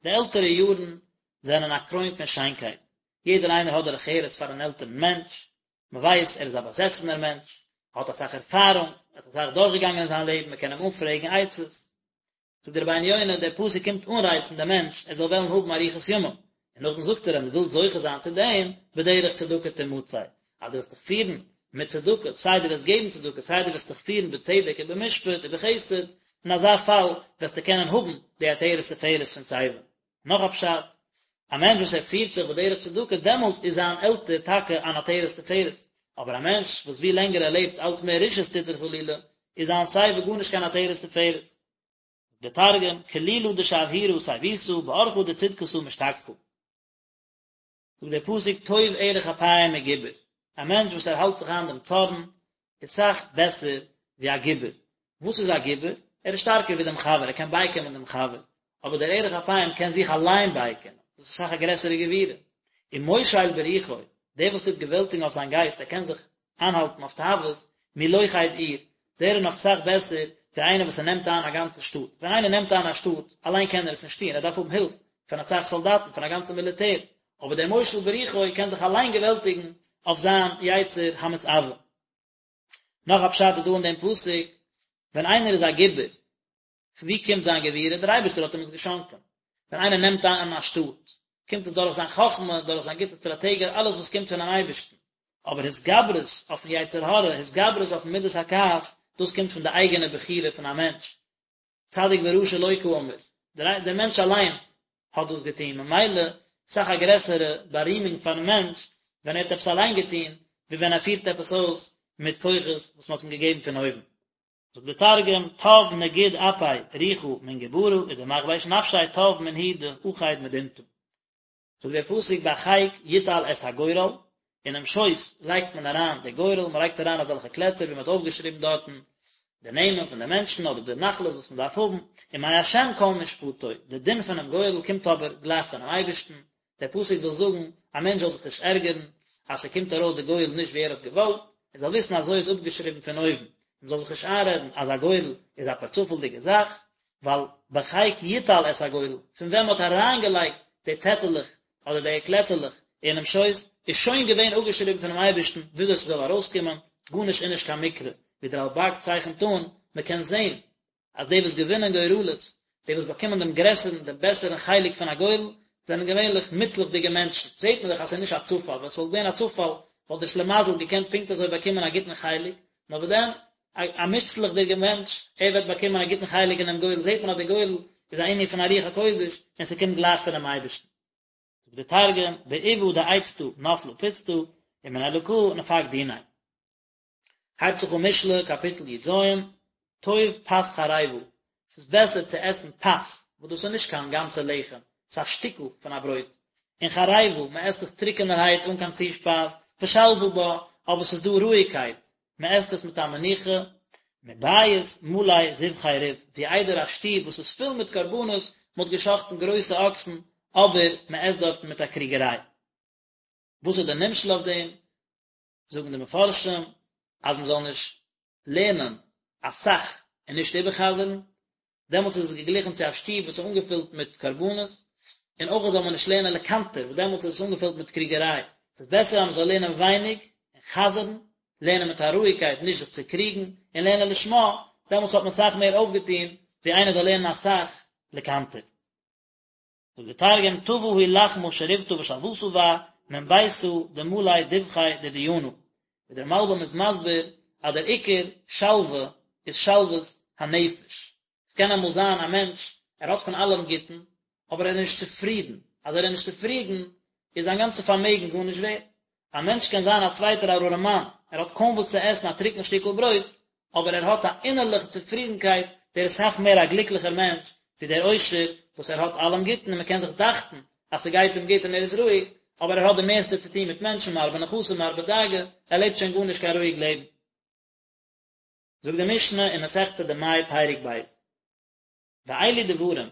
די עלטערע יארן זענען א קרוין פון שיינקייט, יעדער איינער האט דרך ארץ פאר אן עלטערן מענטש, מען ווייסט ער איז א באזעסענער מענטש, ער האט אסאך ערפארונג, ער האט אסאך דורכגעגאנגען אין זיין לעבן, מען קען אים אנפרעגן עצות, זאגט דער רבינו יונה, דער פסוק קומט אנרייצן דעם מענטש ער זאל וועלן האבן אריכות ימים, און נאכדעם זאגט ער אים, ווילסט זוכה זיין צו דעם, בדרך צדקה תמצא, אז דו וועסט דיך פירן מיט צדקה, סיי דו וועסט געבן צדקה, סיי דו וועסט דיך פירן בצדק ובמשפט ובחסד, אין אזא פאל וועסטו קענען האבן די עטרת תפארת פון שיבה. נאך א פשט, א מענטש וואס ער פירט זיך בדרך צדקה, דעמאלטס איז זיין עלטער טאקע אן עטרת תפארת, אבער א מענטש וואס ווי לענגער ער לעבט אלץ מער רשעות טוט ער חלילה, איז זיין שיבה גארנישט קיין עטרת תפארת. דער תרגום, כלילא דשבהירא שיבותא, באורחא דצדקתא משתכחא. זאגט דער פסוק טוב ארך אפים מגיבור, א מענטש וואס ער האלט זיך איין דעם צארן איז סאך בעסער ווי א גיבור, וואס איז א גיבור? ער איז שטארקער ווי דעם חבר, ער קען בייקומען דעם חבר, אבער דער ארך אפים קען זיך אליין בייקומען, דאס איז סאך א גרעסערע גבורה. ומושל ברוחו, דער וואס טוט געוועלטיגן אויף זיין גייסט, ער קען זיך איינהאלטן אויף תאוות, מלוכד עיר, דער איז נאך סאך בעסער ווי איינער וואס ער נעמט איין א גאנצע שטאט, ווען איינער נעמט איין א שטאט, אליין קען ער עס נישט טון, ער דארף האבן הילף פון אסאך סאלדאטן, פון א גאנצע מיליטער, אבער דער מושל ברוחו קען זיך אליין געוועלטיגן אויף זיין יצר המתאווה. נאך א פשט איז דא אין דעם פסוק, ווען איינער איז א גיבור, פון וואו קומט זיין גבורה? דער אייבערשטער האט אים עס געשאנקען. ווען איינער נעמט איין א שטאט, קומט עס דורך זיין חכמה, דורך זיין גוטע סטראטעגיע, אלעס וואס קומט פונעם אייבערשטן. אבער התגברות אויפן יצר הרע, התגברות אויפן מידת הכעס, דאס קומט פון די אייגענע בחירה פון א מענטש. צדיק ורשע לא קאמר, דער מענטש אליין האט דאס געטון, ממילא אסאך א גרעסערע בארימונג פארן מענטש ווען ער האט עפעס אליין געטון, ווי ווען ער פירט עפעס אויס מיט כוחות וואס מען האט אים געגעבן פון אויבן. זאגט דער תרגום, טב נגיד אפי רוחא מן גברא ודמכבש נפשיה טב מן הוא דאחיד מדינתא. זאגט דער פסוק בחיק יוטל את הגורל, אינעם שויס לייגט מען אריין די גורל, מען לייגט אריין אזעלכע קלעצער ווי מען האט אויפגעשריבן דארטן די נעמען פון די מענטשן אדער די נחלות וואס מען דארף האבן, ומה' כל משפטו, די דין פונעם גורל קומט אבער גלייך פונעם אייבערשטן, דער פסוק וויל זאגן, א מענטש זאל זיך נישט ערגערן אז ס'קומט ארויס די גורל נישט ווי ער האט געוואלט, ער זאל וויסן אזוי איז אפגעשריבן פון אויבן, מען זאל זיך נישט איינרעדן אז א גורל איז א פערצופאלדיגע זאך, ווייל בחיק יוטל את הגורל, פון ווען מען האט אריינגעלייגט די צעטעלעך אדער די קלעצעלעך אינעם שויס, איז שוין געווען אפגעשריבן פונעם אייבערשטן וויאזוי ס'זאל ארויסקומען, גארנישט איז נישט קיין מקרה, ווי דער רלב"ג צייכנט אן, מען קען זען אז די וואס געווינען גורלות, די וואס באקומען דעם גרעסערן, דעם בעסערן חלק פון א גורל, זענען געווענליך מוצלח'דיגע מענטשן. זעט מען דאך אז ס'איז נישט א צופאל, ווען ס'וואלט געווען א צופאל, וואלט דער שלימזל געקענט פונקט אזוי באקומען א גוטן חלק, נאר וואס דען, א מוצלח'דיגער מענטש, ער וועט באקומען א גוטן חלק אינעם גורל, זעט מען אז דער גורל איז א ענין פון א רוח הקודש, און ס'קומט גלייך פונעם אייבערשטן. זאגט דער תרגום, בעובא דעיצתא נפלא פוצתא, ומן אלקא נפק דיניה. הייבט זיך אן משלי קאפיטל י"ז, טוב פת חרבה, ס'איז בעסער צו עסן פת, וואס דאס איז נישט קיין גאנצע לחם, ס'איז א שטיקל פון א ברויט, און חרבה, מען עסט עס טרוקענערהייט אן קיין צושפייז, ושלוה בה, אבער ס'איז דא רואיגקייט, מען עסט עס מיט א מנוחה, מבית מלא זבחי ריב, ווי איידער א שטוב וואס איז פול מיט קרבנות, מען האט געשחט'ן גרויסע אקסן, אבער מען עסט דארטן מיט א קריגעריי. וואס איז דער נמשל אויף דעם? זאגן די מפרשים אז מען זאל נישט לערנען אסאך און נישט איבערחזר'ן, דעמאלטס איז עס געגליכן צו א שטוב וואס איז אנגעפילט מיט קרבנות, און אויך זאל מען נישט לערנען לקנטר, וואס דעמאלטס איז עס אנגעפילט מיט קריגעריי. עס איז בעסער אז מען זאל לערנען ווייניג און חזר'ן, לערנען מיט א רואיגקייט נישט זיך צו קריגן, און לערנען לשמה, דעמאלטס האט מען אסאך מער אויפגעטון ווי איינער זאל לערנען אסאך לקנטר. זאגט דער תרגום, טבא היא לחמא שריבתא ושלותא בה, מן ביתא דמלי דבחי דדינא. ווי דער מלבי"ם איז מסביר אז דער עיקר שלווה איז שלוות הנפש. עס קען אמאל זיין א מענטש ער האט פון אלעם גוטן, אבער ער איז נישט צופרידן, אז ער איז נישט צופרידן איז זיין גאנצע פארמעגן גארנישט ווערט. א מענטש קען זיין א צווייטער א ארעמאן, ער האט קוים וואס צו עסן א טרוקן שטיקל ברויט, אבער ער האט א אינערליכע צופרידנקייט, דער איז אסאך מער א גליקליכער מענטש ווי דער עושר וואס ער האט אלעם גוטן און מען קען זיך דאכטן אז ס'גייט אים גוט און ער איז רואיג, אבער ער האט די מערסטע צו טון מיט מענטשן, מרבה נכסים מרבה דאגה, ער לעבט שוין גארנישט קיין רואיג לעבן. זאגט די משנה אין מסכת דמאי פרק ב', ואלו דברים,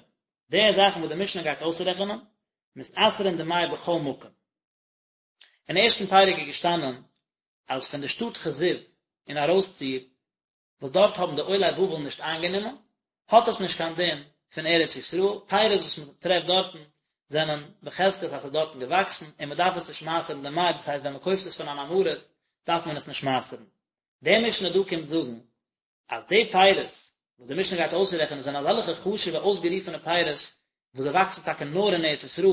די זאכן וואס די משנה גייט אויסרעכענען, מתעשרין דמאי בכל מקום. אין ערשטן פרק איז געשטאנען אז פון די שטאט כזיב און ארויסציר וואס דארט האבן די עולי בבל נישט איינגענומען, האט עס נישט קיין דין פון ארץ ישראל, פירות וואס מען טרעפט דארטן זענען בחזקת אז ס'איז דארטן געוואקסן און מען דארף עס נישט מעשר'ן דמאי, דאס הייסט ווען מען קויפט עס פון אן עם הארץ דארף מען עס נישט מעשר'ן. די משנה דא קומט זאגן אז די פירות וואס די משנה גייט אויסרעכענען זענען אזעלכע חשוב'ע אויסגערופענע פירות וואס זיי וואקסן טאקע נאר אין ארץ ישראל,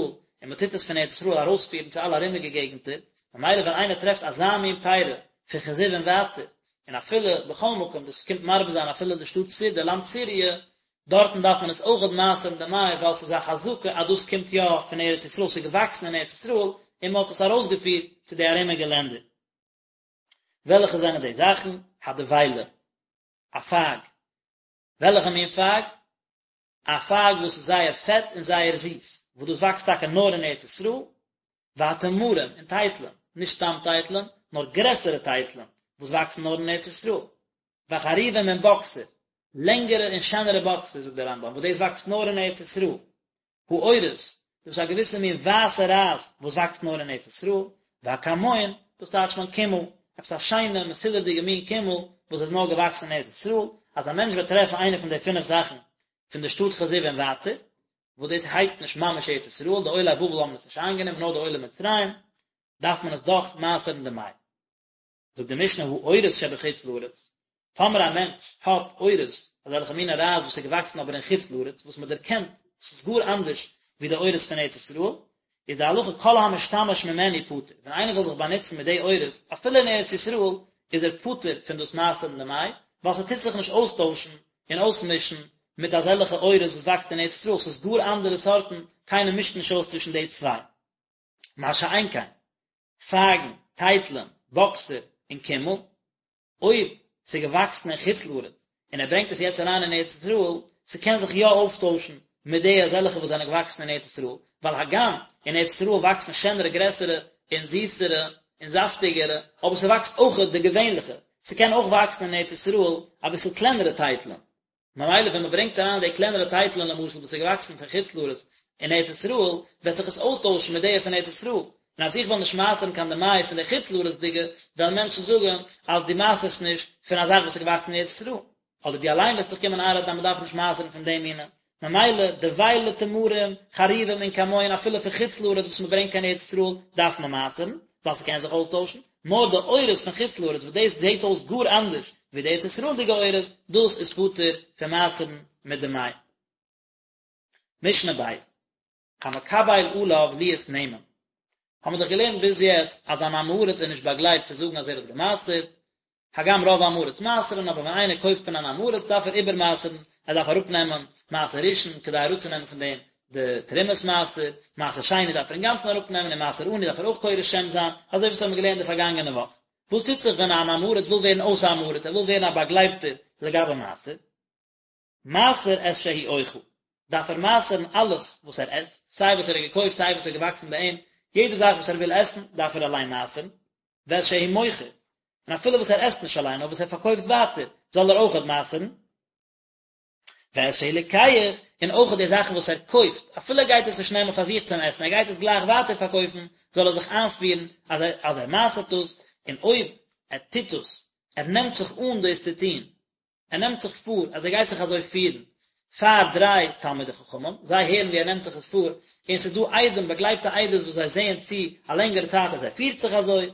און מען טוט עס פון ארץ ישראל ארויספירן צו אלע ארומיגע געגנטער, ממילא ווען איינער טרעפט אזא מין פירא פון כזיב און ווייטער, און אפילו בכל מקום, דאס קומט מרבה זיין אפילו די שטאט סיר, די לאנד סיריע, דארטן דארף מען עס אויכעט מעשר'ן דמאי ווייל ס'איז א חזקה אז דאס קומט יא פון ארץ ישראל, ס'איז געוואקסן אין ארץ ישראל און מען האט עס ארויסגעפירט צו די ארומיגע לענדער. וועלכע זענען די זאכן? הדבילה, א פייג. וועלכע מין פייג? א פייג וואס איז זייער פעט און זייער זיס, וואס דאס וואקסט טאקע נאר אין ארץ ישראל, והתמרים, און טייטלען, נישט סתם טייטלען, נאר גרעסערע טייטלען, וואס וואקסן נאר אין ארץ ישראל. והחרובים און באקסער, לענגערע און שענערע באקסער, זאגט דער רמב"ם, וואס דאס וואקסט נאר אין ארץ ישראל. האורז, דאס איז א געוויסע מין ווייסע רייז וואס וואקסט נאר אין ארץ ישראל, והכמון, דאס טייטשט מען קימל, עפעס א שיינע מסודר'דיגע מין קימל וואס איז נאר געוואקסן אין ארץ ישראל, אז א מענטש וועט טרעפן איינע פון די פינף זאכן פון די שטאט כזיב און ווייטער, וואס דאס הייסט נישט ממש ארץ ישראל, די עולי בבל האבן עס נישט איינגענומען נאר די עולי מצרים, דארף מען עס דאך מעשר'ן דמאי. זאגט די משנה האורז שבחוץ לארץ, טאמער א מענטש האט אורז, אזעלכע מינע רייז וואס איז געוואקסן אבער אין חוץ לארץ, וואס מען דערקענט עס איז גאר אנדערש ווי די אורז פון ארץ ישראל, איז די הלכה כל המשתמש ממנו פטור, ווען איינער זאל זיך באנוצן מיט די עורות אפילו אין ארץ ישראל איז ער פטור פון דאס מעשר'ן דמאי, ווייל ס'טוט זיך נישט אויסטוישן און אויסמישן מיט אזעלכע עורות וואס וואקסט אין ארץ ישראל, ס'איז גאר אנדערע סארטן, קיינער מישט נישט אויס צווישן די צוויי. מה שאין כן, פייגן, טייטלען, באקסער, און קימל, אויב ס'איז געוואקסן אין חוץ לארץ און ער ברענגט עס יעצט אריין אין ארץ ישראל, ס'קען זיך יא אויפטוישן מיט די אזעלכע וואס זענען געוואקסן אין ארץ ישראל, ווייל הגם אין ארץ ישראל וואקסן שענערע גרעסערע און זיסערע און זאפטיגערע, אבער ס'וואקסט אויכעט די געווענליכע, ס'קען אויך וואקסן אין ארץ ישראל אביסל קלענערע טייטלען. ממילא ווען מען ברענגט אריין די קלענערע טייטלען למשל וואס איז געוואקסן פון חוץ לארץ אין ארץ ישראל, וועט זיך עס אויסטוישן מיט די פון ארץ ישראל, און אז איך וועל נישט מעשר'ן קיין דמאי פון די חוץ לארצ'דיגע, וועלן מענטשן זאגן אז דו מעשר'סט נישט פון א זאך וואס איז געוואקסן אין ארץ ישראל, אדער דו אליין וועסט דיך קומען איינרעדן אז מען דארף נישט מעשר'ן פון די מינים. ממילא דבילה תמרים, חרובים און כמון אפילו פון חוץ לארץ וואס מען ברענגט קיין ארץ ישראל דארף מען מעשר'ן, ווייל ס'קען זיך אויסטוישן, נאר די עורות פון חוץ לארץ וואס דאס זעט אויס גאר אנדערש ווי די ארץ ישראל'דיגע עורות, דאס איז פטור פון מעשר'ן מיט דמאי. משנה ב', המקבל עליו להיות נאמן, האבן מיר דאך געלערנט ביז יעצט אז אן עם הארץ איז נישט באגלייבט צו זאגן אז ער האט גע'מעשר'ט, הגם רוב עם הארץ מעשר'ן, אבער ווען איינער קויפט פון אן עם הארץ דארף ער איבערמעשר'ן, ער דארף אראפנעמען מעשר ראשון כדי אראפצונעמען פון דעם די תרומת מעשר, מעשר שני דארף ער אינגאנצן אראפנעמען און מעשר עני דארף ער אויך קורא שם זיין, אזוי ווי עס האבן מיר געלערנט די פארגאנגענע וואך. וואס טוט זיך ווען אן עם הארץ וויל ווערן אויס עם הארץ, ער וויל ווערן א באגלייבטער לגבי מעשר? מעשר את שהוא אוכל, דארף ער מעשר'ן אלעס וואס ער עסט, סיי וואס ער האט געקויפט סיי וואס איז געוואקסן ביי אים, יעדע זאך וואס ער וויל עסן דארף ער אליין מעשר'ן, ואת שהוא מוכר, און אפילו וואס ער עסט נישט אליין נאר וואס ער פארקויפט ווייטער זאל ער אויכעט מעשר'ן, ואת שהוא לוקח, און אויכעט די זאכן וואס ער קויפט, אפילו ער גייט עס נישט נעמען פאר זיך צום עסן, ער גייט עס גלייך ווייטער פארקויפן, זאל ער זיך איינפירן אז ער אז ער מעשר'ט דאס, און אויב ער טוט דאס, ער נעמט זיך אן דאס צו טון, ער נעמט זיך פאר אז ער גייט זיך אזוי פירן פאר דריי תלמידי חכמים, זיי הערן ווי ער נעמט זיך עס פאר, און ס'איז דא עדים, באגלייבטע עדות וואס זיי זעען צו א לענגערע צייט אז ער פירט זיך אזוי,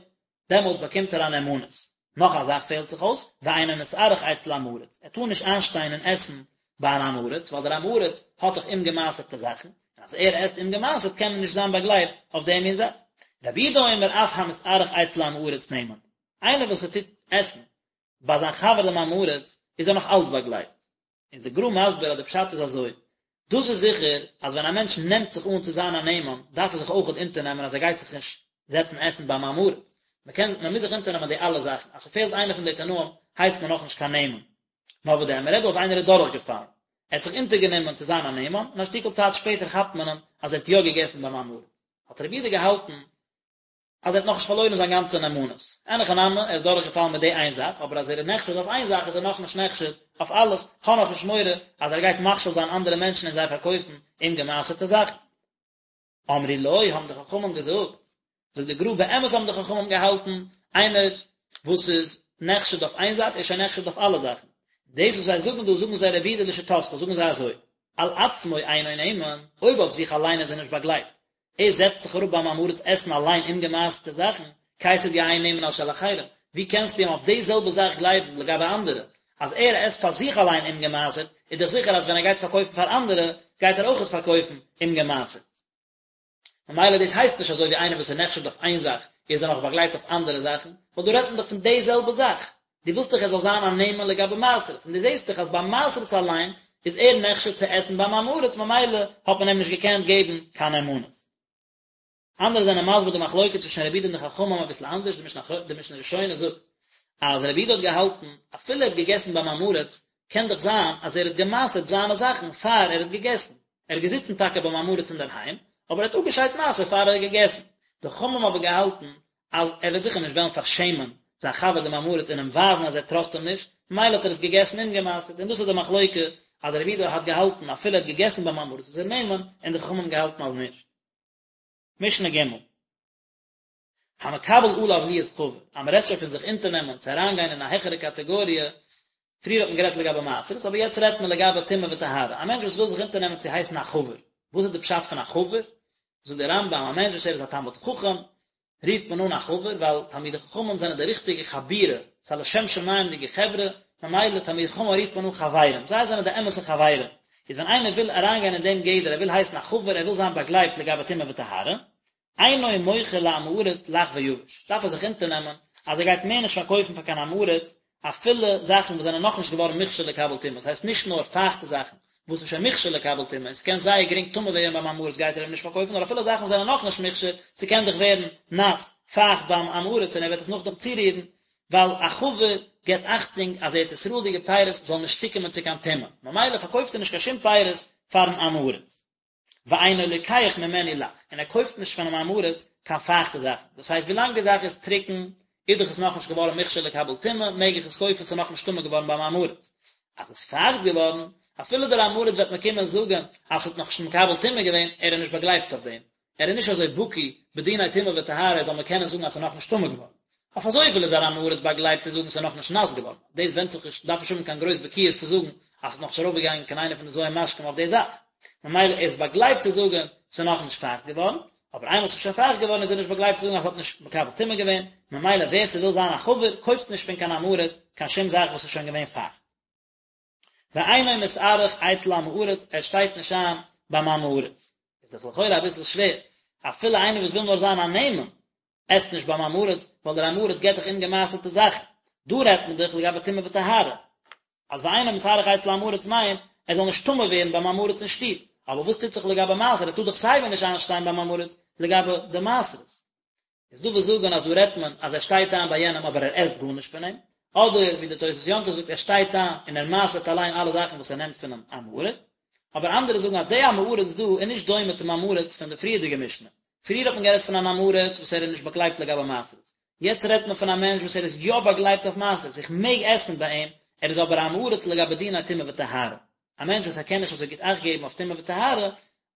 דעמאלטס באקומט ער א נאמנות. נאך א זאך פעלט זיך אויס, ואינו מתארח אצל עם הארץ, ער טאר נישט איינשטיין און עסן ביי אן עם הארץ, ווייל דער עם הארץ האט דאך אומגעמעשר'טע זאכן, און אז ער עסט אומגעמעשר'ט קען מען נישט זיין באגלייבט אויף דעם מין זאך. רבי יהודה אומר אף המתארח אצל עם הארץ נאמן, איינער וואס ער טוט עסן ביי זיין חבר דעם עם הארץ איז ער נאך אלץ באגלייבט. איז די גר"א מסביר אז די פשט איז אזוי, דאס איז זיכער אז ווען א מענטש נעמט זיך אן צו זיין א נאמן דארף ער זיך אויכעט אונטערנעמען אז ער גייט זיך נישט זעצן עסן ביים עם הארץ, מען קען מען מוז זיך אונטערנעמען די אלע זאכן, אז ס'פעלט איינע פון די תנאים הייסט מען נאכנישט קיין נאמן. נאר וואס דען, מען רעדט דא אז איינער איז דורכגעפאלן, ער האט זיך אונטערגענומען צו זיין א נאמן, און א שטיקל צייט שפעטער כאפט מען אים אז ער האט יא געגעסן ביים עם הארץ. האט רבי יהודה געהאלטן אז ער האט נאכנישט פארלוירן זיין גאנצע נאמנות. אין הכי נמי, ער איז דורכגעפאלן מיט די איין זאך, אבער אז ער איז נחשד אויף איין זאך איז ער נאכנישט נחשד אויף אלעס, כ'האב נאכנישט מורא אז ער גייט מכשיל זיין אנדערע מענטשן און זיי פארקויפן אומגעמעשר'טע זאכן. אמרו לו, האבן די חכמים געזאגט, זאגט די גר"א, באמת האבן די חכמים געהאלטן, איינער וואס איז נחשד אויף איין זאך איז שוין נחשד אויף אלע זאכן. דאס וואס זיי זאגן דא, זאגן זיי רבי יהודה לשיטתך, זאגן זיי אזוי, על עצמו אינו נאמן, אויב אויף זיך אליין איז ער נישט באגלייבט, ער זעצט זיך אראפ ביים עם הארץ עסן אליין אומגעמעשר'טע זאכן, כיצד יהא נאמן על של אחרים? ווי קענסטו אים אויף די זעלבע זאך גלייבן לגבי אנדערע? אז ער עסט פאר זיך אליין אומגעמעשר'ט, איז דאך זיכער אז ווען ער גייט פארקויפן פאר אנדערע, גייט ער אויכעט פארקויפן אומגעמעשר'ט. ממילא דאס הייסט נישט אזוי ווי איינער וואס איז נחשד אויף איין זאך, איז ער נאך באגלייבט אויף אנדערע זאכן, ווייל דא רעדט מען דאך פון די זעלבע זאך. דו ווילסט דאך ער זאל זיין א נאמן לגבי מעשרות, און דו זעסט דאך אז ביי מעשרות אליין איז ער נחשד צו עסן ביים עם הארץ ממילא האט מען אים נישט געקענט געבן קיין נאמנות. אנדערע זענען מסביר די מחלוקת צווישן רבי יהודה און די חכמים אביסל אנדערש, די משנה ראשונה זאגט אז רבי יהודה האט געהאלטן אפילו ער האט געגעסן ביים עם הארץ קען דאך זיין אז ער האט געמעשר'ט זיינע זאכן פאר ער האט געגעסן, ער איז געזיצן טאקע ביים עם הארץ אינדערהיים, אבער ער האט אפגעשיידט מעשר פאר ער האט געגעסן. די חכמים האבן געהאלטן אז ער וועט זיכער נישט וועלן פארשעמען זיין חבר דעם עם הארץ און אים ווייזן אז ער טראסט אים נישט, ממילא האט ער עס געגעסן אומגעמעשר'ט, און דאס איז די מחלוקה אז רבי יהודה האט געהאלטן אפילו ער האט געגעסן ביים עם הארץ איז ער נאמן, און די חכמים האבן געהאלטן אז נישט. משנה ג'. המקבל עליו להיות חבר, אז מען רעדט שוין פון זיך אונטערנעמען צו אריינגיין אין א העכערע קאטעגאריע, פריער האט מען גערעדט לגבי מעשרות, אבער יעצט רעדט מען לגבי טומאה וטהרה, א מענטש וואס וויל זיך אונטערנעמען צו הייסן א חבר, וואס איז די פשט פון א חבר? זאגט דער רמב"ם, א מענטש וואס ער איז א תלמיד חכם, רופט מען אן א חבר, ווייל תלמידי חכמים זענען די ריכטיגע חבורה, ס'איז א לשם שמים'דיגע חברה, ממילא תלמידי חכמים רופט מען אן חברים, זיי זענען די אמת'ע חברים, איז ווען איינער וויל אריינגיין אין דעם גדר, ער וויל הייסן א חבר, ער וויל זיין באגלייבט לגבי טומאה וטהרה. אינו מוכר לעם הארץ לח ויבש, דארף ער זיך אונטערנעמען אז ער גייט מער נישט פארקויפן פאר קיין עם הארץ אפילו זאכן וואס זענען נאכנישט געווארן מוכשר לקבל טומאה, דאס הייסט נישט נאר פייכטע זאכן וואס איז שוין מוכשר לקבל טומאה און ס'קען זייער גרינג טמא ווערן ביים עם הארץ גייט ער אים נישט פארקויפן, נאר אפילו זאכן וואס זענען נאכנישט מוכשר, ס'קען דאך ווערן נאס, פייכט ביים עם הארץ און ער וועט עס נאכדעם צורירן, ווייל א חבר געבט אכטונג אז ארץ ישראל'דיגע פירות זאלן נישט צוקומען צו קיין טומאה, ממילא פארקויפט ער נישט קיין שום פירות פארן עם הארץ. ואינו לוקח ממנו לח, און ער קויפט נישט פונעם עם הארץ קיין פייכטע זאכן, דאס הייסט ווילאנג די זאך איז טרוקן איז דאך עס נאכנישט געווארן מוכשר לקבל טומאה, מעג איך עס קויפן, ס'איז נאכנישט טמא געווארן ביים עם הארץ. אז עס איז פייכט געווארן, אפילו דער עם הארץ וועט מיר קומען זאגן אז ס'האט נאכנישט מקבל טומאה געווען, ער איז נישט באגלייבט אויף דעם, ער איז נישט אזוי בקי בדיני טומאה וטהרה ער זאל מיר קענען זאגן אז ס'איז נאכנישט טמא געווארן. אויף אזויפיל איז אן עם הארץ באגלייבט צו זאגן ס'איז נאכנישט נאס געווארן, דאס ווענדט זיך נישט, דארף נישט האבן קיין גרויס בקיאות צו זאגן אז ס'איז נאכנישט ארויפגעגאנגען קיין איינע פון די ז' משקים אויף די זאך, ממילא ער איז באגלייבט צו זאגן ס'איז נאכנישט פייכט געווארן, אבער איינמאל ס'איז שוין פייכט געווארן איז ער נישט באגלייבט צו זאגן אז ס'האט נישט מקבל טומאה געווען, ממילא ווער ס'וויל זיין א חבר קויפט נישט פון קיין עם הארץ קיין שום זאך וואס איז שוין געווען פייכט. ואינו מתארח אצל עם הארץ, ער שטייט נישט איין ביים עם הארץ. איז דאך לכאורה אביסל שווער, אפילו איינער וואס וויל נאר זיין א נאמן, עסט נישט ביים עם הארץ, ווייל דער עם הארץ געבט דאך אומגעמעשר'טע זאכן. דא רעדט מען דאך לגבי טומאה וטהרה. אז ואינו מתארח אצל עם הארץ מיינט, ער זאל נישט טמא ווערן ביים עם הארץ אין שטוב. אבער וואס טוט זיך לגבי מעשר, ער טאר דאך סייווי נישט איינשטיין ביים עם הארץ לגבי די מעשרות. איז דא וואס זאגן אז דא רעדט מען אז ער שטייט איין ביי יענעם אבער ער עסט גארנישט פון אים, אדער ווי די תוס' יום טוב זאגט ער שטייט איין און ער מעשר'ט אליין אלע זאכן וואס ער נעמט פונעם עם הארץ, אבער אנדערע זאגן אז די עם הארץ דא איז נישט דומה צום עם הארץ פון די פריערדיגע משנה, פריער האט מען גערעדט פון אן עם הארץ וואס ער איז נישט באגלייבט לגבי מעשרות, יעצט רעדט מען פון א מענטש וואס ער איז יא באגלייבט אויף מעשרות, איך מעג עסן ביי אים, ער איז אבער א עם הארץ לגבי דיני טומאה וטהרה, א מענטש וואס ער קען נישט אזוי גוט אכט געבן אויף טומאה וטהרה,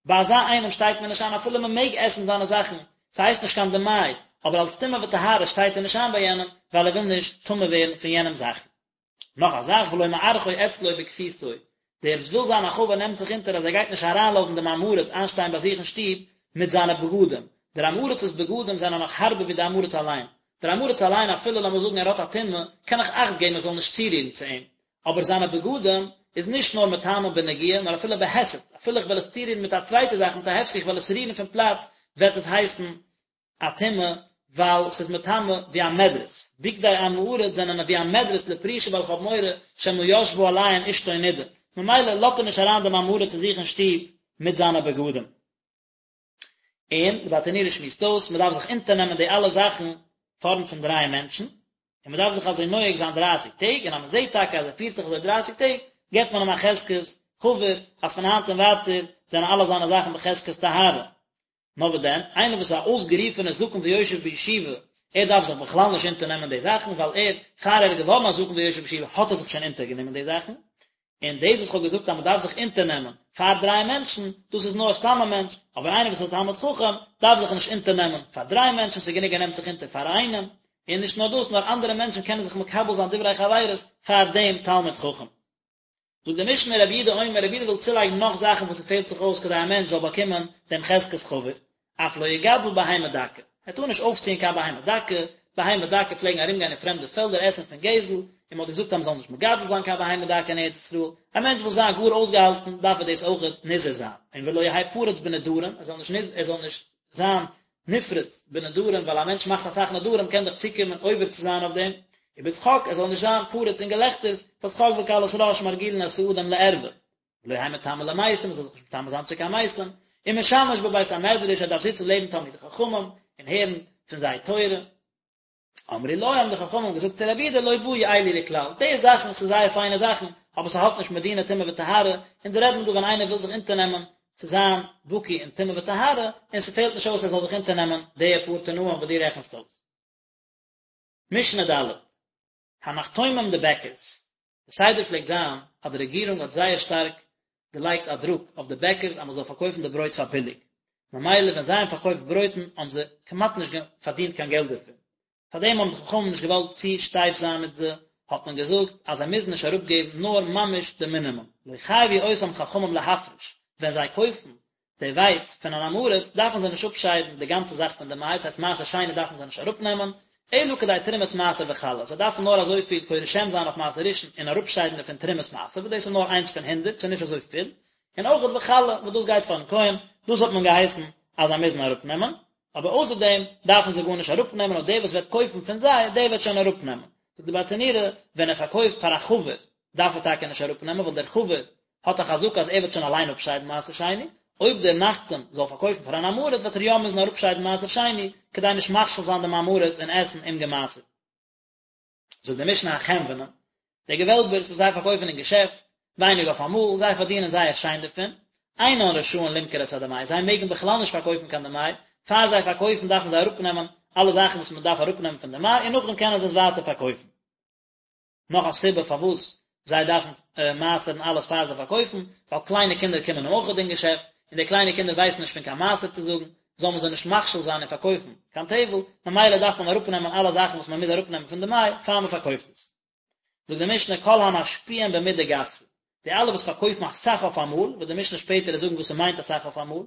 ביי אזא איינעם שטייט מען נישט איין אפילו מען מעג עסן זיינע זאכן, ס'הייסט נישט קיין דמאי, אבער אלס טומאה וטהרה שטייט ער נישט איין ביי יענעם, ווייל ער וויל נישט טמא ווערן פון יענעמ'ס זאכן. נאך א זאך, ולא מארחו אצלו בכסותו, דער וואס וויל זיין א חבר נעמט זיך אונטער אז ער גייט נישט אריינלאזן דעם עם הארץ איינשטיין ביי זיך אין שטוב מיט זיינע בגדים, דער עם הארצ'ס בגדים זענען נאך הארבער ווי די עם הארץ אליין, דער עם הארץ אליין אפילו לאמיר זאגן ער האט א טומאה, קען איך אכט געבן איך זאל נישט צורירן צו אים, אבער זיינע בגדים איז נישט נאר מטמא בנגיעה נאר אפילו בהיסט, אפילו איך וועל עס צורירן מיט א צווייטע זאך מיט א הפסק איך וועל עס רירן פון פלאץ וועט עס הייסן א טומאה ווייל ס'איז מטמא ווי א מדרס, בגדי עם הארץ זענען ווי א מדרס לפרישה ווייל איך האב מורא שמא ישבה עליהן אשתו נידה, ממילא לאזט ער נישט אריין דעם עם הארץ צו זיך אין שטוב מיט זיינע בגדים. און די ברטנורא שמועסט אויס, מען דארף זיך אונטערנעמען די אלע זאכן פארנט פון דריי מענטשן, און מען דארף זיך אזוי נוהג זיין דרייסיג טעג, און אז מען זעט טאקע אז ער פירט זיך אזוי דרייסיג טעג, געבט מען אים א חזקת חבר, אז פון היינט און ווייטער זענען אלע זיינע זאכן בחזקת טהרה. נאר וואס דען, איינער וואס איז א אויסגערופענער זקן ויושב בישיבה, ער דארף זיך בכלל נישט אונטערנעמען די זאכן, ווייל ער, פאר ער איז געווארן א זקן ויושב בישיבה האט ער זיך שוין אונטערגענומען די זאכן, און דאס וואס כ'האב געזאגט אז מ'דארף זיך אונטערנעמען פאר דריי מענטשן, דאס איז נאר סתם א מענטש, אבער איינער וואס איז א תלמיד חכם דארף זיך נישט אונטערנעמען פאר דריי מענטשן, ס'איז גענוג ער נעמט זיך אונטער פאר איינעם, און נישט נאר דאס, נאר אנדערע מענטשן קענען זיך מקבל זיין דברי חברות פאר דעם תלמיד חכם. זאגט די משנה רבי יהודה אומר, רבי יהודה וויל צולייגן נאך זאכן וואס ס'פעלט זיך אויס כדי א מענטש זאל באקומען דעם חזקת חבר, אף לא יגדל בהמה דקה, ער טאר נישט אויפציען קיין בהמה דקה, בהמה דקה פלעגן ארומגיין אין פרעמדע פעלדער עסן פון גזל, און מען האט געזאגט אז מען זאל נישט מגדל זיין קיין בהמה דקה אין ארץ ישראל, א מענטש וויל זיין גאר אויסגעהאלטן דארף ער דאס אויכעט נזהר זיין, און ולא יהא פרוץ בנדרים, ער זאל נישט ער זאל נישט זיין נפרץ בנדרים, ווייל א מענטש מאכט אסאך נדרים קען דאך צוקומען עובר צו זיין אויף דעם, ובשחוק, ער זאל נישט זיין פרוץ אין געלעכטערס, ווייל שחוק וקלות ראש מרגילין את האדם לערווה. ולא יהא מטמא למתים, מ'זאל זיך נישט מטמא זיין צו קיין מתים, ומשמש בבית המדרש, ער דארף זיצן לעבן תלמידי חכמים און הערן פון זיי תורה. אמרו לו, האבן די חכמים געזאגט צו רבי יהודה, לא באו אלו לכלל, די זאכן ס'איז זייער פיינע זאכן, אבער ס'האלט נישט מיט דיני טומאה וטהרה, אונז רעדן דא ווען איינער וויל זיך אונטערנעמען צו זיין בקי אין טומאה וטהרה, און ס'פעלט נישט אויס ער זאל זיך אונטערנעמען די פאר תנאים וואס דו רעכנסט אויס. משנה ד', הנחתומים די בעקערס, די סדר פלעגט זיין אז די רעגירונג האט זייער שטארק געלייגט א דרוק אויף די בעקערס אז מען זאל פארקויפן די ברויט פאר ביליג, ממילא ווען זיי האבן פארקויפט ברויטן האבן זיי כמעט נישט פארדינט קיין געלט דערפון, פארדעם האבן די חכמים נישט געוואלט צו שטייף זיין מיט זיי, האט מען געזאגט אז זיי מוזן נישט אראפגעבן נאר ממש די מינימום, לא חייבו אותם חכמים להפריש, ווען זיי קויפן די ווייץ פון אן עם הארץ דארפן זיי נישט אפשיידן די גאנצע זאך פון די מייץ, הייסט מעשר שני דארפן זיי נישט אראפנעמען, אלא כדי תרומת מעשר וחלה, זיי דארפן נאר אזויפיל קורא שם זיין אויף מעשר ראשון און אראפשיידן דערפון תרומת מעשר, וואס דאס איז נאר איינס פון הונדרעט, ס'איז נישט אזוי פיל, און אויכעט וחלה, וואס דאס גייט פארן כהן, דאס האט מען געהייסן אז זיי מוזן אראפנעמען. אבער אויסער דעם דארפן זיי גארנישט אראפנעמען נאר דער וואס וועט קויפן פון זיי דער וועט שוין אראפנעמען. זאגט די ברטנורא, ווען ער פארקויפט פאר א חבר דארף ער טאקע נישט אראפנעמען ווייל דער חבר האט א חזקה אז ער וועט שוין אליין אפשיידן מעשר שני, אויב דער נחתום זאל פארקויפן פאר אן עם הארץ וועט ער יא מוזן אראפשיידן מעשר שני כדי נישט מכשיל זיין דעם עם הארץ און עסן אומגעמעשר'ט. זאגט די משנה החנוונים, די געוועלבערס וואס זיי פארקויפן אין געשעפט, ווייניג אויף אמאל, זיי פארדינען זייער שיין דערפון, אינן רשאין למכור את הדמאי, זיי מעגן בכלל נישט פארקויפן קיין דמאי, פאר זיי פארקויפן דארפן זיי אראפנעמען אלע זאכן וואס מען דארף אראפנעמען פון דמאי און נאכדעם קענען זיי עס ווייטער פארקויפן. נאך א סיבה פארוואס זיי דארפן מעשר'ן אלעס פאר זיי פארקויפן, ווייל קליינע קינדער קומען אויך אין געשעפט, און די קליינע קינדער ווייסן נישט פון קיין מעשר צו זאגן, זאל מען זיי נישט מכשיל זיין און פארקויפן קיין טבל, ממילא דארף מען אראפנעמען אלע זאכן וואס מען מוז אראפנעמען פון דמאי פאר מען פארקויפט עס. זאגט די משנה כל המשפיעים במידה גסה, די אלע וואס פארקויפן אסאך אויף אמאל, וועט די משנה שפעטער זאגן וואס ס'מיינט אסאך אויף אמאל,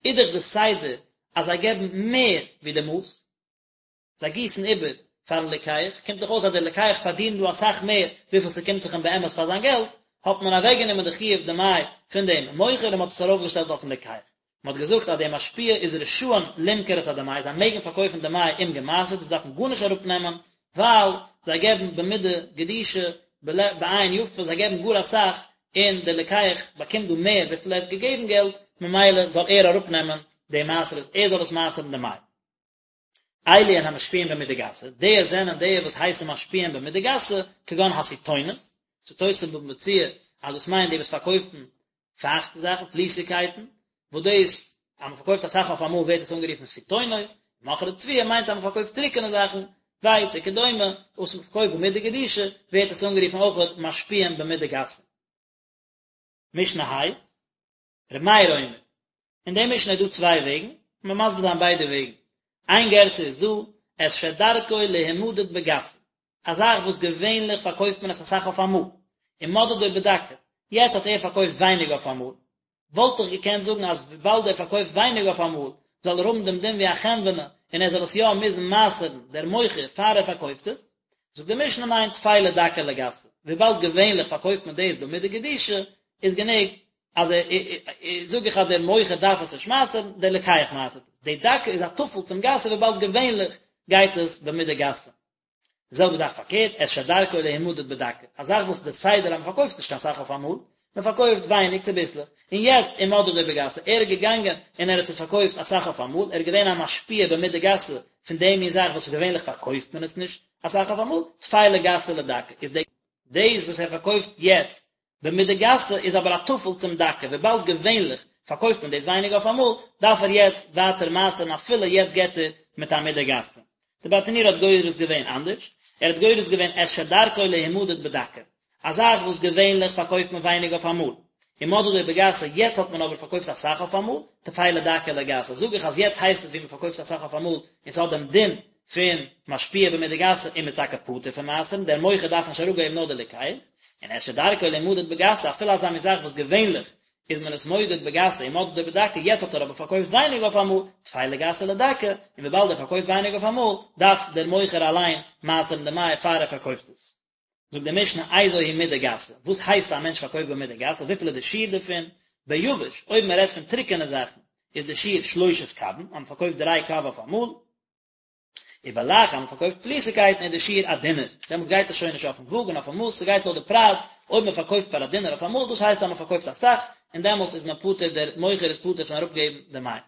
איז דאך די סדר אז זיי געבן מער ווי די מאס, זיי גיסן איבער פארן לוקח, קומט דאך אויס אז דער לוקח פארדינט דא אסאך מער וויפיל ס'קומט זיך אים באמת פאר זיין געלט, האט מען אוועקגענומען די חיוב דמאי פון דעם מוכר און מ'האט עס ארויפגעשטעלט אויפן לוקח. מ'האט געזאגט אז דער משפיע איז רשאין למכור את הדמאי, זיי מעגן פארקויפן דמאי אומגעמעשר'ט, זיי דארפן גארנישט אראפנעמען, ווייל זיי געבן במידה גדושה, בעין יפה, זיי געבן גאר אסאך, און דער לוקח באקומט דא מער וויפיל ער האט געגעבן געלט, ממילא זאל ער אראפנעמען די מעשרות, ער זאל עס מעשר'ן דמאי. אלו הן המשפיעים במידה גסה, די זענען די וואס הייסן משפיעים במידה גסה, כגון הסיטונות, זאגט תוס' אין בבא מציעא אז דאס מיינט די וואס פארקויפן פייכטע זאכן, פליסיגקייטן, וואס דאס אז מען פארקויפט אסאך אויף אמאל ווערט עס אנגערופן סיטונות, מוכרי תבואה מיינט אז מען פארקויפט טרוקענע זאכן, ווייץ וכדומה, וואס מען פארקויפט במידה גדושה, ווערט עס אנגערופן אויך משפיעים במידה גסה. משנה ה', ר' מאיר אומר, אין די משנה איז דא צוויי וועגן, און מ'וועט מסביר זיין ביידע וועגן. איין גירסא איז דא, את שדרכו להימדד בגסה, א זאך וואס געווענליך פארקויפט מען עס אסאך אויף אמאל, ומדדו בדקה, יעצט האט ער פארקויפט ווייניג אויף אמאל, וואלט איך געקענט זאגן אז וויבאלד ער פארקויפט ווייניג אויף אמאל, זאל ער האבן דעם דין ווי א חנווני, און ער זאל עס יא מוזן מעשר'ן, דער מוכר, פאר ער פארקויפט עס. זאגט די משנה ניין טפלה דקה לגסה, וויבאלד געווענליך פארקויפט מען דאס במידה גדושה, איז גענוג אז ער זאג איך אז דער מוכר דארף עס נישט מעשר'ן, דער לוקח מעשר'ט עס. די דקה איז א טפל צום גסה וויבאלד געווענליך גייט עס במידה גסה. די זעלבע זאך פארקערט, את שדרכו להימדד בדקה, א זאך וואס די סדר אז מען פארקויפט נישט קיין סאך אויף אמאל, מען פארקויפט ווייניג צוביסלעך, און יעצט ומדדו בגסה, ער איז געגאנגען און ער האט עס פארקויפט אסאך אויף אמאל, ער איז געווען א משפיע במידה גסה פון די מין זאך וואס געווענליך פארקויפט מען עס נישט אסאך אויף אמאל, טפלה גסה לדקה, איז די. דאס וואס ער פארקויפט יעצט במידה גסה איז אבער א טפל צום דקה, וויבאלד געווענליך פארקויפט מען דאס ווייניג אויף אמאל, דארף ער יעצט ווייטער מעשר'ן אפילו יעצט געט ער מיט א מידה גסה. די ברטנורא האט גורס געווען אנדערש, ער האט גורס געווען את שדרכו להימדד בדקה, א זאך וואס געווענליך פארקויפט מען ווייניג אויף אמאל, ומדדו בגסה, יעצט האט מען אבער פארקויפט אסאך אויף אמאל, טפלה דקה לגסה, זאג איך אז יעצט הייסט עס ווי מען פארקויפט אסאך אויף אמאל און ס'האט דעם דין פון משפיע במידה גסה און מ'איז טאקע פטור פון מעשר'ן, דער מוכר דארף נישט אראפגעבן נאר דער לוקח, און את שדרכו להימדד בגסה אפילו אזא מין זאך וואס געווענליך איז מען עס מודד בגסה ומדדו בדקה יעצט האט ער אבער פארקויפט ווייניג אויף אמאל, טפלה גסה לדקה, און וויבאלד ער פארקויפט ווייניג אויף אמאל דארף דער מוכר אליין מעשר'ן דמאי פאר ער פארקויפט עס. זאגט די משנה איזו היא מידה גסה, וואס הייסט א מענטש פארקויפט במידה גסה, וויפיל איז די שיעור דערפון, ביבש, אויב מען רעדט פון טרוקענע זאכן, איז די שיעור שלושת קבין, אז מען פארקויפט דריי קב אויף אמאל, ובלח, אז מען פארקויפט פליסיגקייטן איז די שיעור א דינר, דעמאלטס גייט עס שוין נישט אויפן וואג און אויפן מאס, ס'גייט לויט די פרייז, אויב מען פארקויפט פאר א דינר אויף אמאל, דאס הייסט אז מען פארקויפט אסאך, און דעמאלטס איז מען פטור, דער מוכר איז פטור פון אראפגעבן דמאי.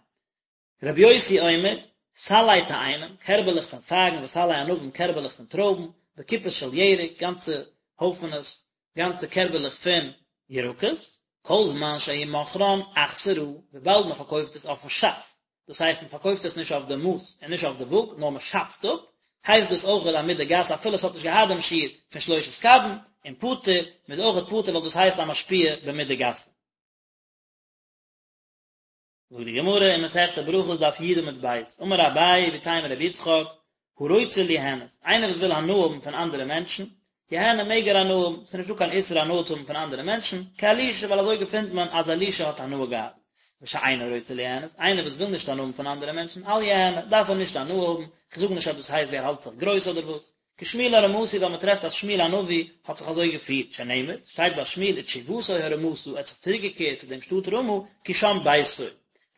רבי יוסי אומר, סלי תאנים, קערבעלעך פון פייגן וסלי ענבים, קערבעלעך פון טרויבן, וקופות של ירק, גאנצע הויפענעס, גאנצע קערבעלעך פון ירקות, כל זמן שהוא מוכרן אכסרה, וויבאלד מען פארקויפט עס אויפן שאץ, דאס הייסט מען פארקויפט עס נישט אויף די מאס און נישט אויף די וואג, נאר מען שאצט אפ, הייסט דאס אויכעט א מידה גסה אפילו עס האט נישט געהאט דעם שיעור פון שלושת קבין, און פטור, מען איז אויכעט פטור ווייל דאס הייסט א משפיע במידה גסה. זאגט די גמרא אין מסכת ברכות דף י עמוד ב', אמר אביי ואיתימא רבי יצחק, הרוצה ליהנות, איינער וואס וויל הנאה האבן פון אנדערע מענטשן, יהנה מעג ער הנאה האבן, ס'איז נישטא קיין איסור הנאה צו האבן פון אנדערע מענטשן, כאלישע ווייל אזוי געפינט מען אז אלישע האט הנאה געהאט, ושאינו רוצה ליהנות, איינער וואס וויל נישט הנאה האבן פון אנדערע מענטשן, אל יהנה, דארף ער נישט הנאה האבן, כ'זאג נישט אז דאס הייסט ווי ער האלט זיך גרויס אדער וואס, כשמואל הרמתי ווייל מען טרעפט אז שמואל הנביא האט זיך אזוי געפירט, שנאמר, שטייט ביי שמואל ותשובתו הרמתה, ער האט זיך צוריק געקערט צו דעם שטאט רמה, כי שם ביתו.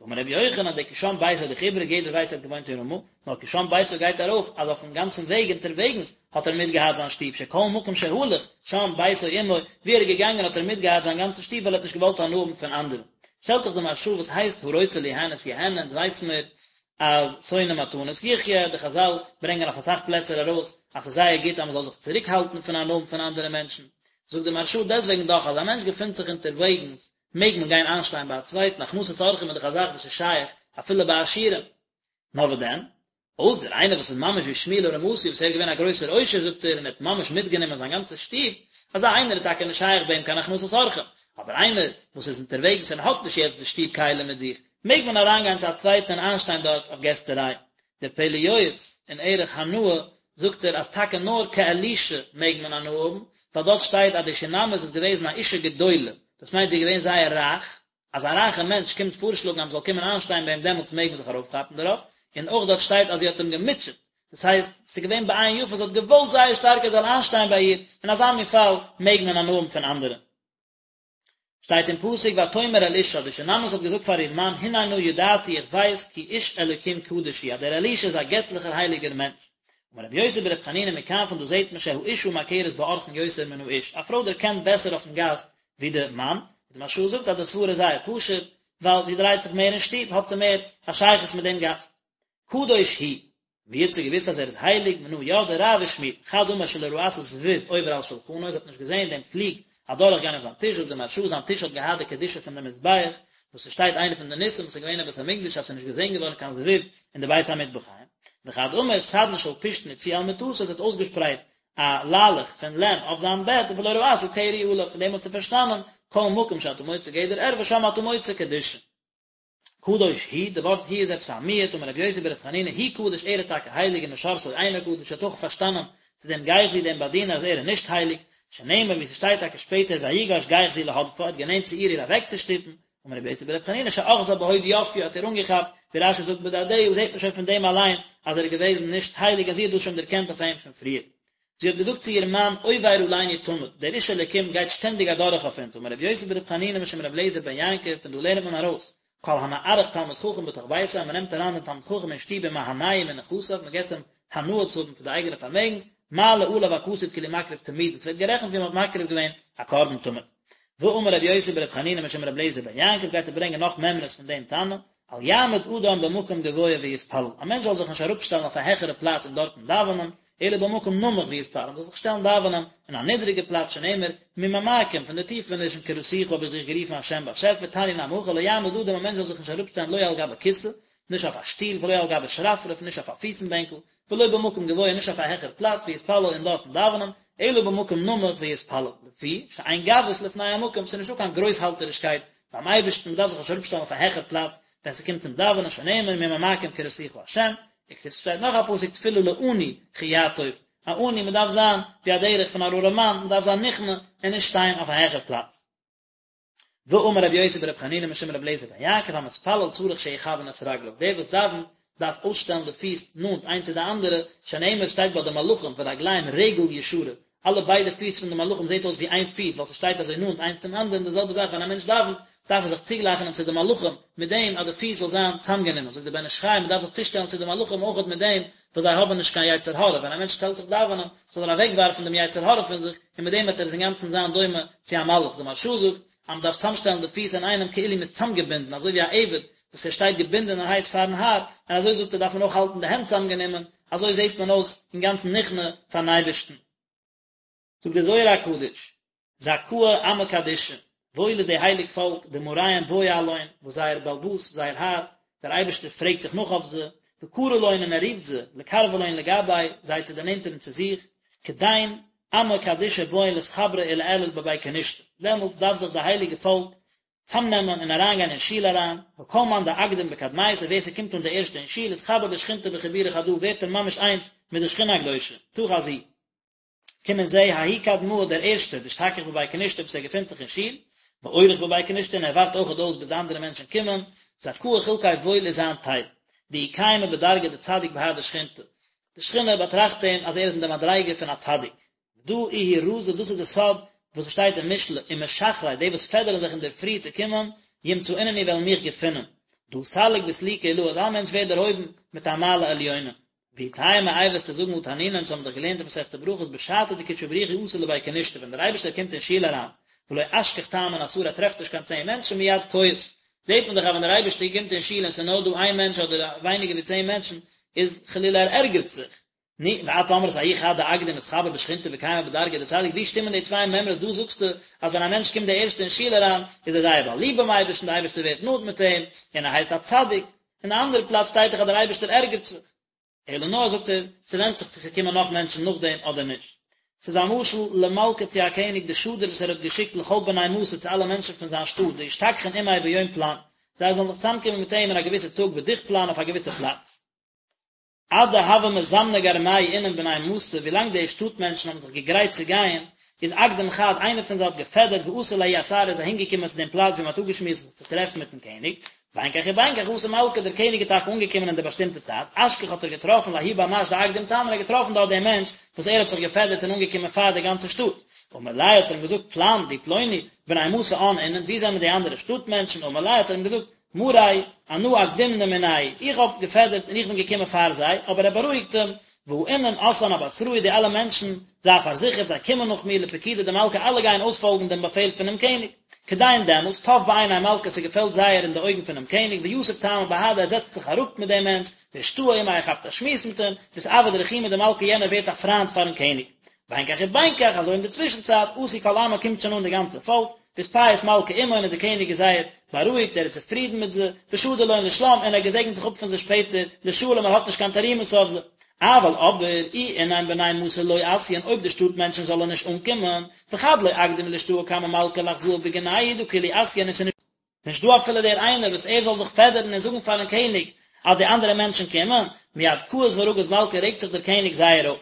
ואמר רבי יוחנן, די כי שם ביתו איז דאך איבריג, יעדער ווייסט ער האט געוואוינט אין רמה, נאר כי שם ביתו גייט ארויף אז אויפן גאנצן וועג אונטערוועגנס האט ער מיטגעהאט זיין שטוב, שכל מקום שהלך שם ביתו עמו, ווי ער איז געגאנגען האט ער מיטגעהאט זיין גאנצע שטוב ווייל ער האט נישט געוואלט הנאה האבן פון אנדערע. שטעלט זיך די מהרש"א וואס הייסט הרוצה ליהנות יהנה, אונז ווייס מיר אז שונא מתנות יחיה, די חז"ל ברענגען אויף אסאך פלעצער ארויס אז ס'איז זייער גוט אז מ'זאל זיך צוריק האלטן פון הנאה האבן פון אנדערע מענטשן, זאגט די מהרש"א דעסוועגן דאך אז א מענטש געפינט זיך אונטערוועגנס מעג מען גיין איינשטיין ביי א צווייטן, הכנסת אורחים איז דאך א זאך וואס איז שייך אפילו ביי עשירים. נאר וואס דען? אויסער איינער וואס איז ממש ווי שמואל הרמתי וואס ער איז געווען א גרויסער עושר זאגט ער און ער האט ממש מיטגענומען זיין גאנצע שטוב, אזא איינער איז טאקע נישט שייך ביי אים קיין הכנסת אורחים, אבער איינער וואס איז אונטערוועגנס און האט נישט יעצט די שטוב כלים מיט זיך, מעג מען אריינגיין צו א צווייטן און איינשטיין דארט אויף געסטעריי. דער פלא יועץ אין ערך הנאה זאגט ער אז טאקע נאר כאלישע מעג מען הנאה האבן, ווייל דארט שטייט אז די שונמית איז געוועזן א אישה גדולה, דאס מיינט זי איז געווען זייער רייך, אז א רייכע מענטש קומט פארשלאגן אז מען זאל קומען איינשטיין ביי אים דעמאלטס מעג מען זיך ארויפכאפן דערויף, און אויך דארט שטייט אז זי האט אים געמוטשעט, דאס הייסט, ס'איז געווען בעין יפה, זי האט געוואלט זייער שטארק ער זאל איינשטיין ביי איר, אין אזא מין פאל מעג מען הנאה האבן פון אנדערע. שטייט אין פסוק ותאמר אל אישה, די שונמית האט געזאגט פאר איר מאן, הנה נא ידעתי איך ווייס כי איש אלוקים קדוש הוא, אז דער אלישע איז א געטליכער הייליגער מענטש. אמר רבי יוסי ברבי חנינא מכאן פון דא זעט מען שהאשה מכרת באורחין יותר מן האיש, א פרוי דערקענט בעסער אויפן גאסט ווי די מאן, די מהרש"א זאגט אז די סברא איז זייער פשוט, ווייל זי דרייט זיך מער אין שטוב האט זי מער א שייכות מיט דעם גאסט. קדוש הוא, ווי האט זי געוואוסט אז ער איז הייליג, מנא ידעה רב ושמואל, חד אמר שלא ראתה זבוב עובר על שלחנו, זי האט נישט געזען דעם פליג אדורך גיין אויף זיין טיש, זאגט די מהרש"א זיין טיש האט געהאט די קדושה פון די מזבח, וואס עס שטייט איינע פון די ניסים וואס איז געווען אין בית המקדש אז עס איז נישט געזען געווארן קיין זבוב אין די בית המטבחיים, וחד אמר סדין של פשתן הציעה על מטתו, זי האט אויסגעשפרייט א ליילעך פון לען אויף זיין בעט ולא ראתה קרי עליו, פון דעם האט זי פארשטאנען כל מקום שאתה מוצא גדר ערווה שם אתה מוצא קדושה. קדוש הוא, די ווארט הוא איז עפעס א מיעוט, אמר רבי יוסי ברבי חנינא הוא קדוש ער איז טאקע הייליג ומשרתו אינו קדוש האט אויך פארשטאנען צו דעם גיחזי דעם באדינער אז ער איז נישט הייליג, שנאמר ווי ס'שטייט טאקע שפעטער ויגש גיחזי להדפה ער האט גענענט צו איר איר אוועקצושטופן, אמר רבי יוסי ברבי חנינא שאחזה בהוד יפיה האט איר אנגעכאפט, ווי רש"י זאגט בדדיה זעט מען שוין פון דעם אליין אז ער איז געוועזן נישט הייליג און זי האט דאס שוין דערקענט אויף אים פון פריער. זי האט געזאגט צו איר מאן, עובר עלינו תמיד, דער איש אלוקים גייט שטענדיג אדורך אויף אונז, אמר רבי יוסי ברבי חנינא משום רבי אליעזר בן יעקב, פון דא לערנט מען ארויס, כל המארח תלמיד חכם בתוך ביתו, אז מען נעמט אריין דעם תלמיד חכם אין שטוב ומהנהו מנכסיו, מען געבט אים הנאה צו האבן פון די אייגענע פארמעגנס, מעלה עליו הכתוב כאילו מקריב תמיד, עס ווערט גערעכנט ווי מען האט מקריב געווען א קרבן תמיד. ואמר רבי יוסי ברבי חנינא משום רבי אליעזר בן יעקב גייט ער ברענגען נאך מימרות פון דעם תנא, אל יעמוד אדם במקום גבוה ויתפלל, א מענטש זאל זיך נישט אראפשטעלן אויף א העכערע פלאץ און דארטן דאווענען, אלא במקום נמוך ויתפלל, מען זאל זיך שטעלן דאווענען אין א נידריגע פלאץ שנאמר, ממעמקים, פון די טיפענישן קראתיך האב איך דיך גערופן השם באשעפער, תניא נמי הכי לא יעמוד אדם א מענטש זאל זיך נישט אראפשטעלן לא על גבי כסא, נישט אויף א שטול, ולא על גבי שרפרף, נישט אויף א פיסן בענקל, ולא במקום גבוה נישט אויף א העכער פלאץ ויתפלל און דארטן דאווענען, אלא במקום נמוך ויתפלל, לפי שאין גבהות לפני המקום, ס'איז נישטא קיין גרויסהאלטערישקייט ביים אייבערשטן, מ'דארף זיך נישט אראפשטעלן אויף א העכער פלאץ ווען ס'קומט צום דאווענען, שנאמר ממעמקים קראתיך ה', וכתיב ס'שטייט נאך א פסוק תפלה לעני כי יעטוף, א עני מ'דארף זיין ווי א דרך פון אן ארעמאן, מ'דארף זיין נכנע און נישט שטיין אויף א העכער פלאץ. ואמר רבי יוסי ברבי חנינא משום רבי אליעזר בן יעקב המתפלל צריך שיכוון את רגליו, דער וואס דאווענט דארף אויסשטעלן די פיס נאנט איינס צו די אנדערע, שנאמר שטייט ביי די מלאכים ורגליהם רגל ישרה, אלע ביידע פיס פון די מלאכים זעט אויס ווי איין פיס ווייל ס'שטייט אזוי נאנט איינס צום אנדערן, די זעלבע זאך ווען א מענטש דאווענט דארף ער זיך צוגלייכענען צו די מלאכים מיט דעם אז די פיס זאל זיין צאמגענומען, זאגט דער בן איש חי מ'דארף זיך צושטעלן צו די מלאכים אויכעט מיט דעם וואס זיי האבן נישט קיין יצר הרע, ווען א מענטש שטעלט זיך דאווענען זאל ער אוועקווארפן דעם יצר הרע פון זיך, און מיט דעם וועט ער אינגאנצן זיין דומה צו א מלאך, די מהרש"א זאגט אז מען דארף צאמשטעלן די פיס אינאיינעם כאילו מען איז צאמגעבינדן, אזוי ווי א עבד וואס ער שטייט געבינדענערהייט פארן האר, און אזוי זאגט ער דארף מען אויך האלטן די הענט צאמגענומען, אזוי זעט מען אויס אינגאנצן נכנע פארן אייבערשטן. זאגט דער זוהר הקדוש, זכאה עמא קדישא, וואויל איז די הייליג פאלק, דמאריהון בעי עלהון, וואס זייער בעל הבית, זייער האר, דער אייבערשטער פרעגט זיך נאך אויף זיי, וקרי לון און ער רופט זיי, לקרבא לון לגביה, זיי צו דערנענטערן צו זיך, כדין עמא קדישא בעאן לאתחברא ולאעלא בבי כנישתא, דעמאלטס דארף זיך די הייליגע פאלק צאמנעמען און אריינגיין אין שול אריין, וכל מאן דאקדים בקדמיתא, ווער ס'קומט אן די ערשטע אין שול, אתחבר בשכינתא בחיבורא חדא, ווערט ער ממש איינס מיט די שכינה הקדושה, תא חזי. קום און זע, ההוא קדמאה דער ערשטער, דאשתכח בבי כנישתא וואס ער געפינט זיך אין שול, ואורח בבי כנישתא און ער ווארט אויכעט אויס ביז די אנדערע מענטשן קומען, זכאה חולקיה וואויל איז זיין טייל. דאיהו קיימא בדרגא דצדיק בהדי שכינתא. די שכינה באטראכט אים אז ער איז אין די מדריגה פון א צדיק. דא איהו רזא דאס איז די סוד וואס עס שטייט אין משלי, ומשחרי די וואס פעדערן זיך אינדערפרי צו קומען, ימצאונני וועלן מיך געפינען. דא סליק בסליקא עילאה, אזא מענטש ווערט דערהויבן מיט א מעלה עליונה. ואי תימא איי וועסטו זאגן הא תנינא אונז האבן דאך געלערנט אין מסכת ברכות בשעתא דקודשא בריך הוא אתא לבי כנישתא ווען דער אייבערשטער קומט אין שול אריין ולא אשכח תמן עשרה ער טרעפט נישט קיין צען מענטשן מיד כועס זעט מען דאך אז ווען דער אייבערשטער קומט אין שול און ס'איז נאר דא איין מענטש אדער ווייניגער ווי צען מענטשן איז חלילה ער ערגערט זיך נו, ואת אמרת ההוא חד דאקדים אתחבר בשכינתא וקיימא בדרגא דצדיק, ווי שטימען די צוויי מימרות, דא זאגסטו אז ווען א מענטש קומט די ערשטע אין שול אריין, איז ער זייער באליבט ביים אייבערשטן, די אייבערשטער ווערט נאנט מיט אים, און ער הייסט א צדיק, אין די אנדערע פלאץ שטייט דאך אז דער אייבערשטער ערגערט זיך. אלא נאר זאגט ער, ס'ווענדט זיך צו ס'קומען נאך מענטשן נאכדעם אדער נישט. ס'איז א משל למלכא צו א קעניג דשדר וואס ער האט געשיקט לכל בני מתא צו אלע מענטשן פון זיין שטאט דישתכחון עמיה ביום פלן, זיי זאלן זיך צוזאמקומען מיט אים אין א געוויסע טאג בדוך פלן אויף א געוויסע פלאץ. עד דהוו מזמני גרמייהו אינון בני מתא, ווילאנג די שטאט מענטשן האבן זיך געגרייט צו גייען, איז אקדים חד, איינער פון זיי האט געפעדערט ואתא לההוא אתרא איז אהינגעקומען צו דעם פלאץ ווי מען האט אפגעשמועסט זיך צו טרעפן מיטן קעניג, בין כך ובין כך אתא מלכא, דער קעניג איז טאקע אנגעקומען אין די באשטימטע צייט, אשכח האט ער געטראפן לההוא בר נש דאקדים תמן, ער האט געטראפן דארט דעם מענטש וואס ער האט זיך געפעדערט און אנגעקומען פאר די גאנצע שטאט, אמר ליה האט ער אים געזאגט פלן דו פלוני, בני מתא אן אינון, וואו זענען די אנדערע שטאט מענטשן, אמר ליה האט ער אים געזאגט, מארי, אנא אקדימנא מינייהו, איך האב געפעדערט און איך בין געקומען פאר זיי, אבער ער בארואיגט אים, והא אינון אתאן אבתראי, די אלע מענטשן, זיי פארזיכערט, זיי קומען נאך מיר, לפקודא דמלכא, אלע גייען אויספאלגן דעם באפעל פונעם קעניג. כדין דעמאלטס, טב בעיני מלכא, ס'געפעלט זייער אין די אויגן פונעם קעניג, ויתיב תמן בהדיה, ער זעצט זיך אראפ מיט דעם מענטש, ואשתעי עמיה, ער כאפט א שמועס מיט אים, ואתעביד רחימא דמלכא, יענער ווערט א פריינד פארן קעניג. בין כך ובין כך, אזוי אין די צווישן צייט, אתו כל עמא קומט שוין אן די גאנצע פאלק, ואתפייס מלכא עמהון און די קעניג איז זייער בארואיגט, ער איז צופרידן מיט זיי, ושדר לון לשלם און ער געזעגנט זיך אפ פון זיי שפעטער, לשלום ער האט נישט קיין תרעומות אויף זיי. אבל אבער, אי אינון בני מתא לא אתיין אויב די שטאט מענטשן זאלן נישט אנקומען, וחד לא אקדים לאשתעי קמי מלכא לאחזאה בגינייהו דהא כולהו אתיין און ס'איז נישט דא אפילו דער איינער וואס ער זאל זיך פעדערן און זאגן פארן קעניג אז די אנדערע מענטשן קומען, מיד כעס ורגז מלכא רעגט זיך דער קעניג זייער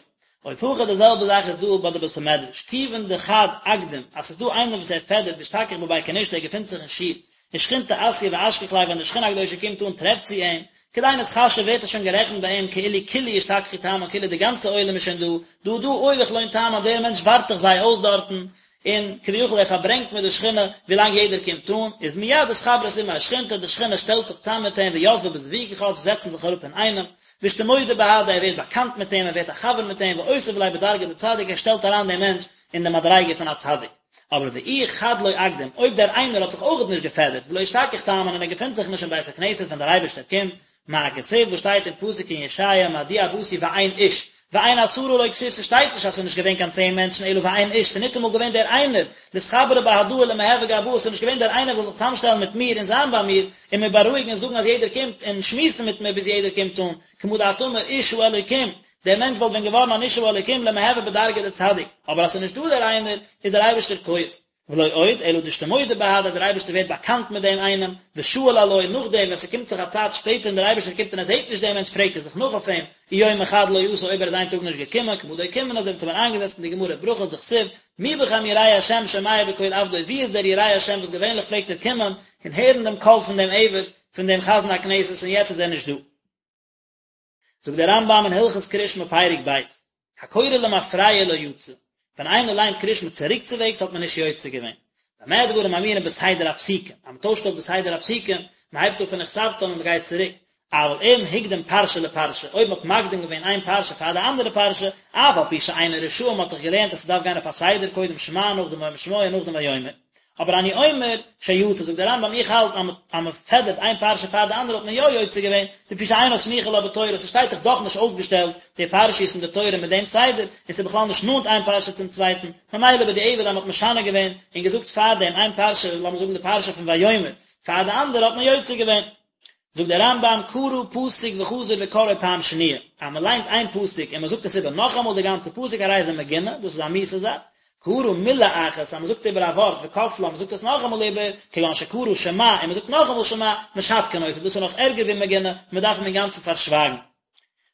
אויף. אוף הכא די זעלבע זאך איז דא ביי די בית המדרש, כיוון דחד אקדים אז ס'איז דא איינער וואס ער פעדערט ואשתכח בבי כנישתא ער געפינט זיך אין שול, ושכינתא אתיא ואשכח ליה ווען די שכינה הקדושה קומט אן טרעפט זי אים, כדין אתחשב ווערט עס שוין גערעכנט ביי אים כאילו כולהו אשתכחו תמן כאילו די גאנצע עולם איז שוין דא, דהא דא אורח לון תמן דער מענטש ווארט דאך זיי אויס דארטן, און כביכול ער פארברענגט מיט די שכינה ווילאנג יעדער קומט אן, איז מיד אתחברת עמיה שכינתא, די שכינה שטעלט זיך צאם מיט אים ויתבי בזווגא חד, זיי זעצן זיך אראפ אינאיינעם, ואשתמודע בהדיה ער ווערט באקאנט מיט אים, ער ווערט א חבר מיט אים, ואותיב ליה בדרגא דצדיק ער שטעלט אריין דעם מענטש אין די מדריגה פון א צדיק. אבער ואי חד לא אקדים, אויב דער איינער האט זיך אויכעט נישט געפעדערט, ולא אשתכח תמן און ער געפינט זיך נישט אין בית הכנסת ווען דער אייבערשטער קומט, מה כתיב וואס שטייט אין פסוק אין ישעיה מדוע באתי ואין איש, ואין עשרה לא כתיב ס'שטייט נישט אז ס'איז נישט געווען קיין צען מענטשן אלא ואין איש ס'איז ניטאמאל געווען דער איינער, לאתחברא בהדאי ולמהוי גבאי ס'איז נישט געווען דער איינער וואס זאל זיך צוזאמשטעלן מיט מיר און זיין ביי מיר און מיר בארואיגן און זאגן אז יעדער קומט און שמועסן מיט מיר ביז יעדער קומט אן, כמה דאת אמר איש האלוקים, דער מענטש וואלט ווען געווארן אן איש האלוקים למהוי בדרגא דצדיק, אבער אז ס'איז נישט דא דער איינער איז דער אייבערשטער כועס. ולא עוד, אלא דאשתמודע בהדיה, דער אייבערשטער ווערט באקאנט מיט דעם איינעם, ושאיל עלוי, נאכדעם ווען ס'קומט זיך א צייט שפעטער און דער אייבערשטער קומט און ער זעט נישט דעם מענטש פרעגט ער זיך נאך אויף אים, אי יומא חד לא אתא אויב ער איז איין טאג נישט געקומען, כמה דאוקימנא אזוי ווי אונז האבן איינגעזעצט אין די גמרא ברכות דכתיב, מי בכם ירא השם שומע בקול עבדו, ווי איז דער ירא השם וואס געווענליך פלעגט ער קומען און הערן דעם קול פון דעם עבד, פון דעם חזן הכנסת און יעצט איז ער נישט דא. זאגט דער רמב"ם אין הלכות קריאת שמע פרק ב', הקורא למפרע לא יצא, ווען איינער ליינט קריאת שמע צוריקצווועגס האט מען נישט יוצא געווען, במה דברים אמורים בסדר הפסוקים, אז מען טוישט אויף די סדר הפסוקים, מען הייבט אן פון וכתבתם און מען גייט צוריק, אבל אם הקדים פרשה לפרשה, אויב מען האט מקדים געווען איין פרשה פאר די אנדערע פרשה, אף על פי שאינו רשאי, מען האט דאך געלערנט אז ס'דארף גיין אויף א סדר, קודם שמע, נאכדעם והיה אם שמוע און נאכדעם ויאמר. אבער אני אומר שיצא, זאגט דער רמב"ם איך האלט אז מען פעדערט איין פרשה פאר די אנדערע האט מען יא יוצא געווען, לפי שאינה סמוכה לה בתורה, ס'שטייט דאך דאך נישט אויסגעשטעלט די פרשיות אין די תורה מיט דעם סדר, און ס'איז בכלל נישט נאנט איין פרשה צום צווייטן, ממילא בדיעבד אז מען האט משנה געווען און געזאגט פארדעם איין פרשה, לאמיר זאגן די פרשה פון ויאמר, פאר די אנדערע האט מען יוצא געווען. זאגט דער רמב"ם קרא פסוק וחזר וקראו פעם שניה, אז מען ליינט איין פסוק און מען זאגט עס איבער נאכאמאל די גאנצע פסוק הרי זה מגונה, דאס איז א מיאוסע זאך, קרא מילה אחת, אז מען זאגט איבער א ווארט וכפלה, מען זאגט עס נאכאמאל איבער, כגון שקרא שמע און מען זאגט נאכאמאל שמע, משתקין אותו, דאס איז נאך ערגער ווי מגונה, מען דארף אים אינגאנצן פארשווייגן.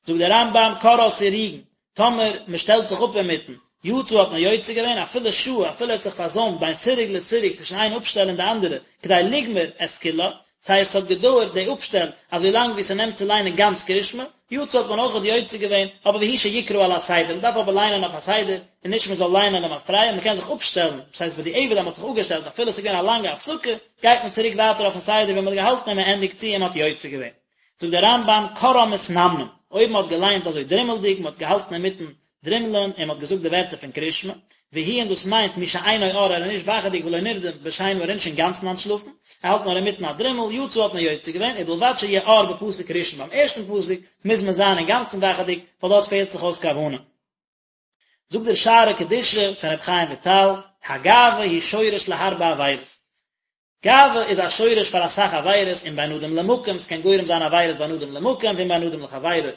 זאגט דער רמב"ם קראה סירוגין, טאמער מען שטעלט זיך אפ אינמיטן, יצא האט מען יוצא געווען, אפילו שהה, אפילו ער האט זיך פארזוימט בין סירוג לסירוג צווישן איין אפשטעל און די אנדערע, כדי לגמור את כולה, ס'הייסט ס'האט געדויערט די אפשטעל אזוי לאנג ווי ס'נעמט צו ליינען גאנץ קרישמע, יצא האט מען אויכעט יוצא געווען, אבער והוא שיקרא על הסדר, מ'דארף אבער ליינען אויף א סדר, און נישט מ'זאל ליינען למפרע, מ'קען זיך אפשטעלן, ס'הייסט בדיעבד אז מ'האט זיך אפגעשטעלט אפילו ס'איז געווען א לאנגע הפסקה, גייט מען צוריק ווייטער אויפן סדר ווי מ'האט געהאלטן און מ'ענדיגט צו און מ'האט יוצא געווען. זאגט דער רמב"ם קראן מתנמנם, אויב מ'האט געליינט אזוי דרימלדיג, מ'האט געהאלטן אינמיטן דרימלען און מ'האט געזאגט די ווערטער פון קרישמע, והוא און דאס מיינט מי שאינו ער ער איז נישט וואכעדיג ולא נרדם בשינה ער איז נישט אינגאנצן אנטשלאפן, ער האלט נאר אינמיטן א דרימל, יצא האט מען יוצא געווען, ובלבד שיהיה ער בפסוק ראשון ביים ערשטן פסוק מוז מען זיין אינגאנצן וואכעדיג, ווייל דארט פעלט זיך אויס כוונה. זאגט דער שערי קדושה פון רבי חיים וויטאל, הגאווה היא שורש להרבה עבירות. גאווה איז א שורש פאר אסאך עבירות אם בין אדם למקום, ס'קען גורם זיין עבירות בין אדם למקום ואם בין אדם לחבירו.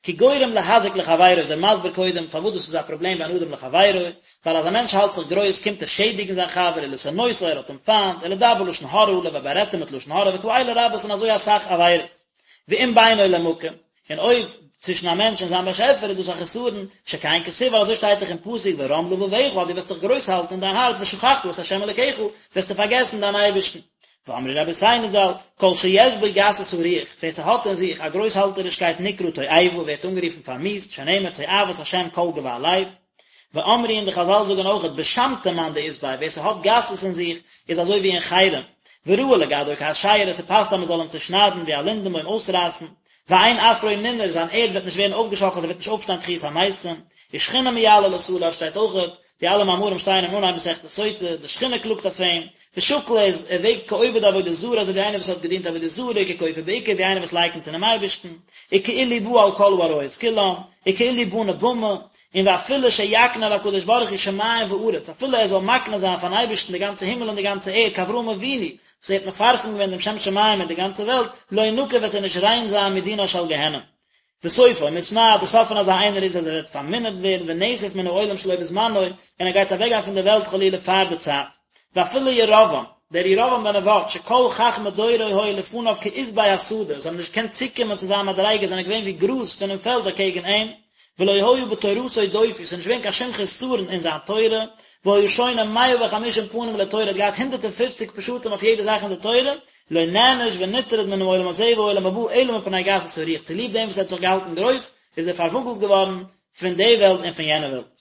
כי גורם להזיק לחבירו איז ער מסביר קודם פארוואס דאס איז א פראבלעם בין אדם לחבירו, ווייל אז א מענטש האלט זיך גרויס קומט ער שעדיגן זיין חבר ולשנאותו ער האט אים פיינט, ולדבר לשון הרע עליו ער בארעדט אים מיט לשון הרע וכאלה רבות און אזוי אסאך עבירות. ואם בינו למקום, און אויב צווישן א מענטש און זיין באשעפער איז דאס א חסרון, שכן כתיב ווייל אזוי שטייט דאך אין פסוק ורם לבבך אז דו וועסט דיך גרויס האלטן אין דיין הארץ ושכחת את ה' אלוקיך, וועסטו פארגעסן דיין אייבערשטן. ואמרו רבותינו ז"ל, כל שיש בו גסות הרוח, ווער ס'האט אין זיך א גרויסהאלטערישקייט נקרא תועבה ווערט אנגערופן פארמיאוסט, שנאמר תועבת השם כל גבה לב. ואמרו און די חזל זאגן אויכעט בשמתא מאן דאית ביה ווער ס'האט גסות אין זיך איז אזוי ווי אין חרם, וראוי לגדעו כאשרה ס'פאסט אז מ'זאל אים צושניידן ווי א לינדענבוים אויסרייסן, ואין עפרו ננער זיין ערד וועט נישט ווערן אויפגעשאקלט ער וועט נישט אויפשטיין תחיית המתים, ושכינה מייללת עליו שטייט אויכעט, די אלע מאמרים שטייען אין אנהייב מסכת סוטה, די שכינה קלאגט אויף אים, ושקול איז ער וועגט כעובד עבודה זרה אזוי ווי איינער וואס האט געדינט עבודה זרה, ככופר בעיקר ווי איינער וואס לייקנט אינעם אייבערשטן, וכאילו בא על כל העריות כולם, וכאילו בנה במה, און ואפילו שיקנה להקדוש ברוך הוא שמים וארץ, אפילו ער זאל מקנה זיין פארן אייבערשטן די גאנצע הימל און די גאנצע ערד, כאברהם אבינו, וואס ער האט מפרסם געווען דעם שם שמים אין די גאנצע וועלט, לא ינקה וועט ער נישט ריין זיין מדינה של גיהנום. וסופו מתמעט, די סוף פון אזא איינער איז אז ער וועט פארמינערט ווערן ונאסף מן העולם שלא בזמנו, און ער גייט אוועקגיין פון דער וועלט חלילה פאר די צייט. ואפילו ירבעם, דער ירבעם בן נבט, שכל חכמי דורו היו לפניו כעשבי השדה, זיי האבן נישט געקענט צוקומען צו זיין מדריגה, זענען געווען ווי גראז פונעם פעלד אקעגן אים, ולא היה בתורתו דופי, ס'איז נישט געווען קיין שום חסרון אין זיין תורה, והיה שונה מאה וחמישים פנים לתורה, ער האט געהאט הונדערט און פופציג פשטים אויף יעדע זאך אין די תורה, לא נענש ונטרד מן העולם הזה והעולם הבא אלא מפני גסות הרוח, צוליב דעם וואס ער האט זיך געהאלטן גרויס, איז ער פארוואגלט געווארן פון די וועלט און פון יענע וועלט.